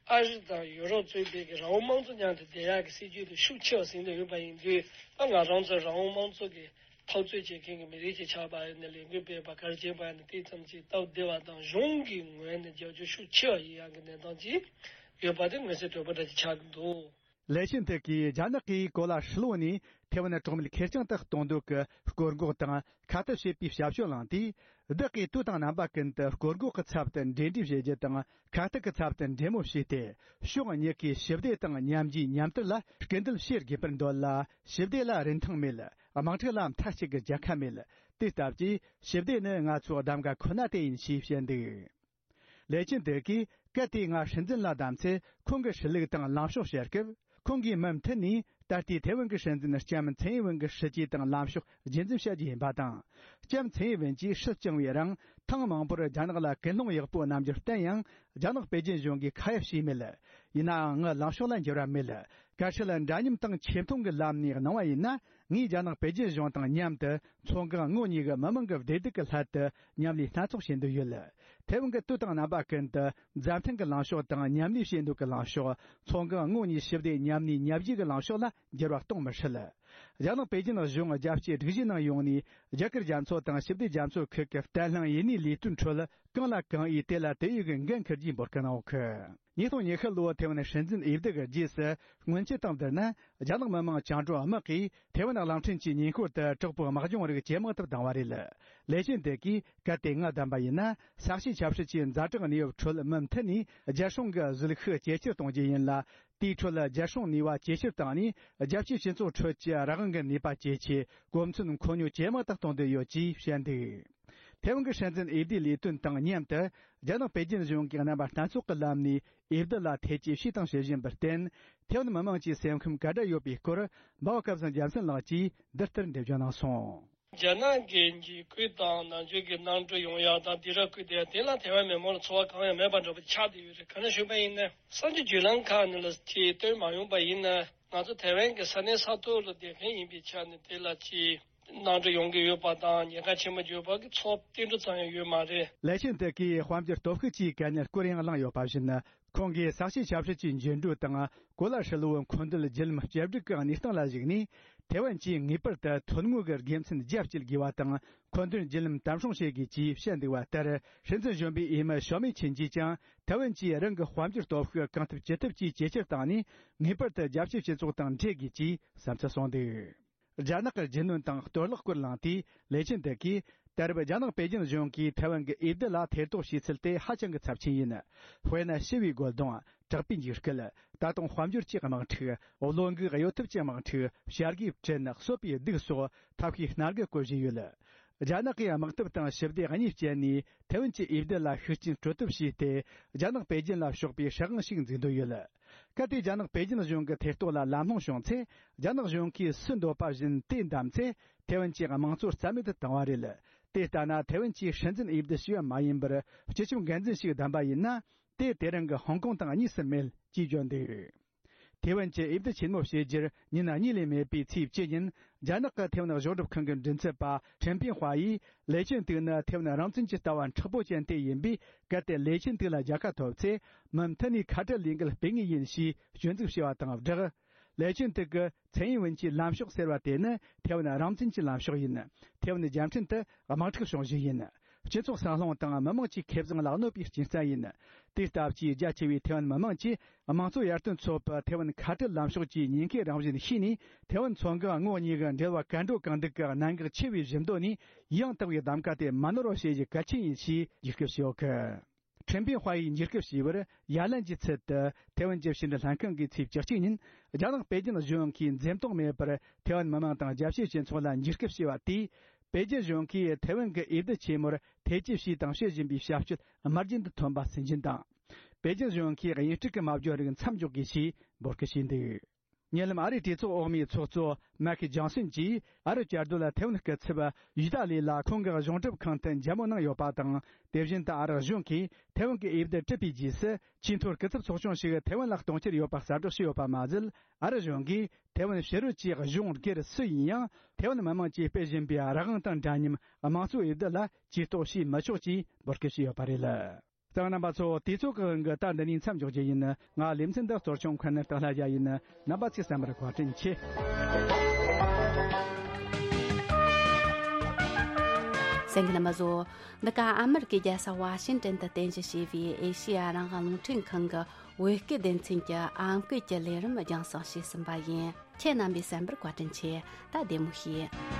ཨ་རི་དང་ཡུ་རོབ་གཙོས་པའི་གི་རང་དབང་དམངས་གཙོ་མཉམ་དུ་བསྡད་ཡག་གི་སྲིད་ཇུས་དེ་ཤུགས་ཆེ་བ་ཟིན་བསྡད་ཡོད་པ་ཡིན་དུས། ད་ང་རང་ཚོ་རང་དབང་དམངས་གཙོ་གི་འཐབ་རྩོད་བྱེད་མཁན་གྱི་མི་རིགས་ཅིག་ཆགས་པ་ཡིན་ན། ལས་འགུལ་སྤེལ་བ་ག་རེ་བྱེད་པ་ཡིན་ན། དེ་ཙམ་གྱིས་སྟབས་བདེ་བ་དང་། གཞུང་གི་ངོས་ནས་རྒྱབ་སྐྱོར་ཤུགས་ཆེ་བ་ཡིན་ཡག་གི་གནས་སྟངས་ཅིག་ཡོད་པ་དེ་མངོན་གསལ་དོད་པོ་འདྲ་ཅིག་ཆགས་ཀྱི་འདུག། ལེ་ཆིན་ཐེ་གིས་རྒྱ་ནག་གིས་གོ་ལ་ཧྲིལ་བོ་ནས་ཐེ་ཝན་གྲོགས་མེད་ཁེར་རྐྱང་དུ་གཏོང་འདོད་ཀྱི་སྐོར་འགོག་དང་ཁ་གཏད་བྱེད་པའི་ཞབས་ཞུ་བླངས་དུས། བདག་གིས་དུས་དང་རྣམ་པ་ཀུན་ཏུ་སྐོར་འགོག་གི་ཚབ་ཏུ་འབྲེལ་འདྲིས་བྱེད་རྒྱུ་དང་། ཁ་གཏད་ཀྱི་ཚབ་ཏུ་འབྲེལ་མོལ་བྱས་ཏེ། ཕྱོགས་གཉིས་ཀས་ཞི་བདེ་དང་མཉམ་རྒྱུས་མཉམ་དར་ལ་སྐུལ་འདེད་བྱེད་དགོས་པར་འདོད་ལ། ཞི་བདེ་ལ་རིན་ཐང་མེད། དམག་འཁྲུག་ལ་མཐའ་གཅིག་གི་རྒྱལ་ཁ་མེད། དེ་ལྟ་བུའི་ཞི་བདེ་ནི་ང་ཚོའི་གདམ་ག་ཁོ་ན་དེ་ཡིན་ཞེས་བཤད་འདུག་ལེ་ཆིན་ཐེ་གིས་གལ་ཏེ་ང་སྲིད་འཛིན་ལ་བདམས་ཚེ། ཁོང་གི་སྲིད་ལུགས་དང་ལངས་ཕྱོགས་བཤད་སྐབས། ཁོང་གིས་མུ་མཐུད་ནས་ད་ལྟའི་ཐེ་ཝན་གྱི་སྲིད་འཛིན་ལྕམ་ཚེ་ཡིན་ཝེན་གྱི་སྲིད་ཇུས་དང་ལངས་ཕྱོགས་རྒྱུན་འཛིན་བྱ་རྒྱུ་ཡིན་པ་དང་། ལྕམ་ཚེ་ཡིན་ཝེན་གྱིས་སྲིད་བསྐྱངས་པའི་རིང་ཐེངས་མང་པོར་རྒྱ་ནག་ལ་ཀུན་སློང་ཡག་པོ་རྣམ་འགྱུར་བསྟན་ཡང་། རྒྱ་ནག་པེ་ཅིན་གཞུང་གིས་ཁ་ཡ་བྱས་མེད། ཡིན་ནའང་ངའི་ལངས་ཕྱོགས་ལ་འགྱུར་བ་མེད། གལ་སྲིད་འདྲ་མཉམ་དང་ཆེ་མཐོང་གི་ལམ་ནས་གནང་བ་ཡིན་ན། ངས་རྒྱ་ནག་པེ་ཅིན་གཞུང་དང་མཉམ་དུ་མཚོ་འགག་ངོགས་གཉིས་ཀྱི་མི་དམངས་ཀྱི་བདེ་སྡུག་གི་སླད་དུ་མཉམ་ལས་སྣ་ཚོགས་བྱེད་འདོད་ཡོད། ཐེ་ཝན་གྱི་དུས་དང་རྣམ་པ་ཀུན་ཏུ་མཛའ་མཐུན་གྱི་ལངས་ཕྱོགས་དང་མཉམ་ལས་བྱེད་འདོད་ཀྱི་ལངས་ཕྱོགས། མཚོ་འགག་ངོགས་གཉིས་ཞི་བདེ་མཉམ་གནས་མཉམ་རྒྱུ་གྱི་ལངས་ཕྱོགས་ལ་འགྱུར་བ་གཏོང་མི་སྲིད། རྒྱ་ནག་པེ་ཅིན་གཞུང་རྒྱལ་སྤྱིའི་སྒྲིག་གཞིའི་ནང་ཡོང་ནས་རྒྱ་གར་རྒྱ་མཚོ་དང་ཞི་བདེ་རྒྱ་མཚོ་ཁུལ་གྱི་བརྟན་ལྷིང་ཡུན་གནས་ལས་དོན་ཁྲོད་གང་ལ་གང་འོས་དེ་ལ་དེ་འོས་ཀྱི་འགན་འཁུར་རྒྱུའི་འབོད་སྐུལ་གནང་ཡོད། ཉིས་སྟོང་ཉི་ཤུ་ལོའི་ཐེ་ཝན་སྲིད་འཛིན་འོས་བསྡུ་གི་རྗེས་སུ། སྔོན་ཆད་དང་བསྡུར་ན། རྒྱ་ནག་མི་དམངས་བཅིངས་འགྲོལ་དམག་གིས་ཐེ་ཝན་གླིང་ཕྲན་གྱི་ཉེ་འཁོར་དུ་དྲག་པོའི་དམག་སྦྱོང་རིགས་ཇེ་མང་དུ་བཏང་བ་རེད། ལེ་ཆིན་ཐེ་གིས་གལ་ཏེ་ང་བདམས་པ་ཡིན་ན། ས་གཤིས་ཆབ་སྲིད་ཀྱི་ཛ་དྲག་གནས་བབ་ཁྲོད་མུ་མཐུད་ནས་རྒྱལ་སྲུང་གི་གཟིགས་ཤུགས་ཇེ་ཆེར་གཏོང་རྒྱུ་ཡིན་ལ། དེའི་ཁྲོད་རྒྱལ་སྲུང་ནུས་པ་ཇེ་ཆེར་བཏང་ནས། རྒྱལ་སྤྱིའི་སྤྱི་ཚོགས་ཁྲོད་ཀྱི་རང་དབང་གི་ནུས་པ་ཇེ་ཆེ། གོ་མཚོན་མཁོ་སྙོད་ཇེ་མང་དུ་གཏོང་འདོད་ཡོད་ཅེས་བཤད་འདུག་ཐེ་ཝན་གྱི་སྲིད་འཛིན་འོས་བསྡུའི་ལས་དོན་དང་མཉམ་དུ། རྒྱ་ནག་པེ་ཅིན་གཞུང་གིས་རྣམ་པ་སྣ་ཚོགས་ཀྱི་ལམ་ནས་འོས་བསྡུ་ལ་ཐེ་ཇུས་བྱས་དང་བྱེད་བཞིན་པར་བརྟེན། ཐེ་ཝན་མི་དམངས་ཀྱི་སེམས་ཁམས་ག་འདྲ་ཡོད་པའི་སྐོར། འབའ་བ་སྐལ་བཟང་རྒྱལ་མཚན་ལགས་ཀྱིས་འདི་ལྟར་འགྲེལ་བརྗོད་གནང་སོང་། རྒྱ་ནག་གི་འཇིགས་སྐུལ་དང་ནང་ཆོས་ཀྱི་གནམ་གྲུ་ཡོང་ཡག་དང་སྡིགས་ར་བསྐུལ་བསྡད་ཡག་དེ་ལ་ཐེ་ཝན་མི་མང་ལ་ཚོར་བ་གང་ཡང་མེད་པ་འདྲ་པོ་ཆགས་བསྡད་ཡོད་རེད། ག་རེ་ཞུས་པ་ཡིན་ན། གསར་འགྱུར་བརྒྱུད་ལམ་ཁག་ནས་ལ་ཅིག་བཏོན་མ་ཡོང་པ་ཡིན་ན། ང་ཚོ་ཐེ་ཝན་གྱི་ས་གནས་ས་ཐོག་ལ་བསྡད་མཁན་ཡིན་པའི་ཆ་ནས་དེ་ལ་ཅིག་གནམ་གྲུ་ཡོང་གི་ཡོད་པ་དང་ཉེན་ཁ་ཆེན་པོ་ཡོད་པ་གི་ཚོར་བ་ཏིལ་འབྲུ་ཙམ་ཡང་ཡོད་མ་རེད། ལེ་ཆིན་ཐེ་གིས་དཔལ་འབྱོར་སྟོབས་ཤུགས་ཀྱི་གལ་གནད་སྐོར་ཡང་གླེང་ཡོད་པ་བཞིན། ཁོང་གིས་ས་གཤིས་ཆབ་སྲིད་ཀྱི་འགྱུར་འགྲོས་དང་གོ་ལ་ཧྲིལ་བོའི་མཁོ་འདོད་བརྒྱུད་ལམ་བཅོས་སྒྲིག་གི་གནས་སྟངས་ལ་གཞིགས་ནས། ཐེ་ཝན་གྱིས་ངེས་པར་དུ་ཐོན་དངོས་ཀྱི་དགེ་མཚན་རྒྱ་བསྐྱེད་དགོས་པ་དང་། མཁོ་འདོན་བརྒྱུད་ལམ་དམ་སྲུང་བྱེད་དགོས་ཅེས་བཤད་འདུག་པ་ལྟར། སྲིད་འཛིན་གཞོན་པའི་འོས་མི་ཞའོ་མེ་ཆིན་གྱིས་ཀྱང་། ཐེ་ཝན་གྱིས་རང་གི་དཔལ་འབྱོར་སྟོབས་ཤུགས་གང་ཐུབ་ཅི་ཐུབ་ཀྱིས་ཇེ་ཆེར་བཏང་ནས། ངེས་པར་དུ་རྒྱལ་སྤྱིའི་སྤྱི་ཚོགས་དང་འབྲེལ་དགོས་ཅེས་བསམ་ཚུལ་གསུངས་འདུག་རྒྱ་ནག་གི་རྒྱུ་ནོར་དང་གཏོར་བརླག་སྐོར་གླེང་དུས། ལེ་ཆིན་ཐེ་གིས། ད་རེབ་རྒྱ་ནག་པེ་ཅིན་གཞུང་གིས་ཐེ་ཝན་གྱི་འོས་བསྡུ་ལ་ཐེ་གཏོགས་བྱས་ཚུལ་དེ་ཧ་ཅང་གི་ཚབས་ཆེན་ཡིན། དཔེར་ན། ཞི་བའི་རྒོལ་རྡུང་། དྲག་པོའི་འཇིགས་སྐུལ། ད་དུང་དཔལ་འབྱོར་གྱི་དམག་འཁྲུག་བློ་འགུག་གཡོ་ཐབས་ཀྱི་དམག་འཁྲུག་བྱ་དགའི་བྲན། གསོད་པའི་སྡུག་སོགས་ཐབས་ཤེས་སྣ་འགའ་བཀོལ་བཞིན་ཡོད། རྒྱ་ནག་གིས་དམག་འཐབ་དང་ཞི་བདེ་གཉིས་སྤྱད་ནས་ཐེ་ཝན་གྱི་འོས་བསྡུ་ལ་ཤུགས་རྐྱེན་སྤྲོད་ཐབས་བྱས་ཏེ། རྒྱ་ནག་པེ་ཅིན་ལ་ཕྱོགས་པའི་སྲིད་དབང་ཞིག་འཛུགས་འདོད་ཡོད། གལ་ཏེ་རྒྱ་ནག་པེ་ཅིན་གཞུང་གི་ཐེ་གཏོགས་ལ་ལམ་ལྷོང་བྱུང་ཚེ། རྒྱ་ནག་གཞུང་གིས་སུས་འདོད་པ་བཞིན་དེ་བདམས་ཚེ། ཐེ་ཝན་གྱི་དམངས་གཙོ་རྩ་མེད་དུ་བཏང་བ་རེད། དེ་ལྟ་ན། ཐེ་ཝན་གྱིས་སྲིད་འཛིན་འོས་བསྡུ་བྱས་པ་མ་ཡིན་པར། སྤྱི་ཁྱབ་འགན་འཛིན་ཞིག་བདམས་པ་ཡིན་ན། དེ་དེ་རིང་གི་ཧོང་ཀོང་དང་གཉིས་སུ་མེད་ཅེས་བརྗོད་འདུག་ཐེ་ཝན་གྱི་འོས་བསྡུ་ཆེན་མོ་བྱེད་རྒྱུར་ཉིན་གཉིས་ལས་མེད་པའི་ཚེས་བཅུ་ཉིན། རྒྱ་ནག་གི་ཐེ་ཝན་གཞུང་སྒྲུབ་ཁང་གི་མགྲིན་ཚབ་པ་ཁྲེན་པིན་ཧྭ་ཡིས། ལེ་ཆིན་ཐེ་ནི་ཐེ་ཝན་རང་བཙན་གྱི་ལྟ་བ་མཁྲེགས་པོ་ཅན་དེ་ཡིན་པས། གལ་ཏེ་ལེ་ཆིན་ཐེ་ལ་རྒྱལ་ཁ་ཐོབ་ཚེ། མུ་མཐུད་ནས་ཁ་བྲལ་ལས་འགུལ་སྤེལ་ངེས་ཡིན་ཞེས་སྐྱོན་འཛུགས་བྱས་པ་དང་སྦྲགས། ལེ་ཆིན་ཐེ་གིས་ཚེ་ཡིན་ཝུན་གྱི་ལམ་ཕྱོགས་ཟེར་བ་དེ་ནི་ཐེ་ཝན་རང་བཙན་གྱི་ལམ་ཕྱོགས་ཡིན། ཐེ་ཝན་རྒྱལ་ཕྲན་དུ་དམག་འཁྲུག་བྱུང་གཞི་ཡིན། སྤྱི་ཚོགས་སྲང་ལྷུང་དང་མི་དམངས་ཀྱི་ཁེ་བཟང་ལ་གནོད་པའི་རྐྱེན་རྩ་ཡིན། དེ་ལྟ་བུའི་རྒྱ་ཆེ་བའི་ཐེ་ཝན་མི་དམངས་ཀྱིས་དམངས་གཙོ་ཡར་ཐོན་ཚོགས་པ་ཐེ་ཝན་ཁ་བྲལ་ལམ་ཕྱོགས་ཀྱི་ཉེན་ཁའི་རང་བཞིན་ཤེས་ནས། ཐེ་ཝན་མཚོ་འགག་ངོགས་གཉིས་ཀྱི་འབྲེལ་བ་གར་འགྲོ་གང་འདུག་གི་གནད་འགག་ཆེ་བའི་བཞི་མདོ་ནས་ཡང་དག་པའི་གདམ་ག་དེ་མ་ནོར་བ་བྱེད་རྒྱུ་གལ་ཆེན་ཡིན་ཞེས་འཇིགས་སྐུལ་བྱས་ཡོད་གི། ཁྲེན་པིན་ཧྭ་ཡིས་འཇིགས་སྐུལ་བྱས་པར། ཡ་ལན་གྱི་ཚུལ་དུ་ཐེ་ཝན་གྱི་ཕྱི་འབྲེལ་ལྷན་ཁང་གིས་ཚེས་བཅུ་གཅིག་ཉིན། རྒྱ་ནག་པེ་ཅིན་གཞུང་གིས་འཛེམ་དོགས་མེད་པར་ཐེ་ཝན་མི་དམངས་དང་རྒྱལ་སྤྱིའི་སྤྱི་ཚོགས་ལ་འཇིགས་སྐུལ་བྱས་པ་དེས། པེ་ཅིན་གཞུང་གིས་ཐེ་ཝན་གྱི་འོས་བསྡུ་ཆེན་མོར་ཐེ་ཇུས་བྱས་དང་བྱེད་བཞིན་པའི་བྱ་སྤྱོད་དམར་རྗེན་དུ་ཐོན་པ་སུན་འབྱིན་དང་། པེ་ཅིན་གཞུང་གིས་དབྱིན་སྤྲུལ་གྱི་སྨྲ་བརྗོད་རིགས་མཚམས་འཇོག་དགོས་ཞེས་འབོད་སྐུལ་བྱས་འདུག་ཉེ་ལམ་ཨ་རིའི་གྲོས་ཚོགས་འོག་མའི་ཚོགས་གཙོ་མེག་ཇོན་སོན་གྱིས། ཨ་རི་བཅའ་སྡོད་ལ་ཐེ་ཝན་སྐུ་ཚབ་ཡུ་ཏཱ་ལི་ལ་ཁོང་གི་གཞུང་སྒྲུབ་ཁང་དུ་མཇལ་མོལ་གནང་ཡོད་པ་དང་། དེ་བཞིན་དུ་ཨ་རི་གཞུང་གིས་ཐེ་ཝན་གྱི་འོས་བསྡུ་གྲུབ་པའི་རྗེས་སུ། ཆེས་མཐོའི་སྐུ་ཚབ་ཚོགས་ཆུང་ཞིག་ཐེ་ཝན་ལ་གཏོང་འཆར་ཡོད་པ་གསལ་བསྒྲགས་བྱས་ཡོད་པ་མ་ཟད། ཨ་རི་གཞུང་གིས་ཐེ་ཝན་ཕྱི་རོལ་གྱི་གཞུང་སྒེར་སུ་ཡིན་ཡང་། ཐེ་ཝན་མི་དམངས་ཀྱིས་སྤེལ་བཞིན་པའི་རང་དབང་དང་འདྲ་མཉམ་དམངས་གཙོའི་འོས་བསྡུ་ལ་ཇུས་གཏོགས་བྱས་མི་ཆོག་ཅེས་འབོད་སྐུལ་བྱས་ཡོད་པ་རེད། གསན་མཁན་རྣམ་པ་ཚོ། དུས་ཚོད་ཀྱི་དབང་གིས་ད་འདི་ནས་མཚམས་འཇོག་རྒྱུ་ཡིན། ང་ལེ་ཚན་འདི་གཙོ་སྐྱོང་མཁན་སྟག་ལྷ་རྒྱལ་ཡིན། རྣམ་པ་ཚོས་གསན་པར་བཀའ་དྲིན་ཆེ། གསན་མཁན་རྣམ་པ་ཚོ། འདི་ག་ཨ་མེ་རི་ཀའི་རྒྱལ་ས་ཝ་ཤིང་ཏན་དུ་རྟེན་གཞི་བྱས་པའི་ཨེ་ཤེ་ཡ་རང་དབང་རླུང་འཕྲིན་ཁང་གི་ བོད་སྐད་སྡེ་ཚན་གྱི་ཨམ་སྐད་ཀྱི་ལས་རིམ་རྒྱང་སྲིང་བྱས་ཟིན་པ་ཡིན། ཁྱེད་རྣམ་པས་གསན་པར་བཀའ་དྲིན་ཆེ། ད་བདེ་མོ་བྱོས།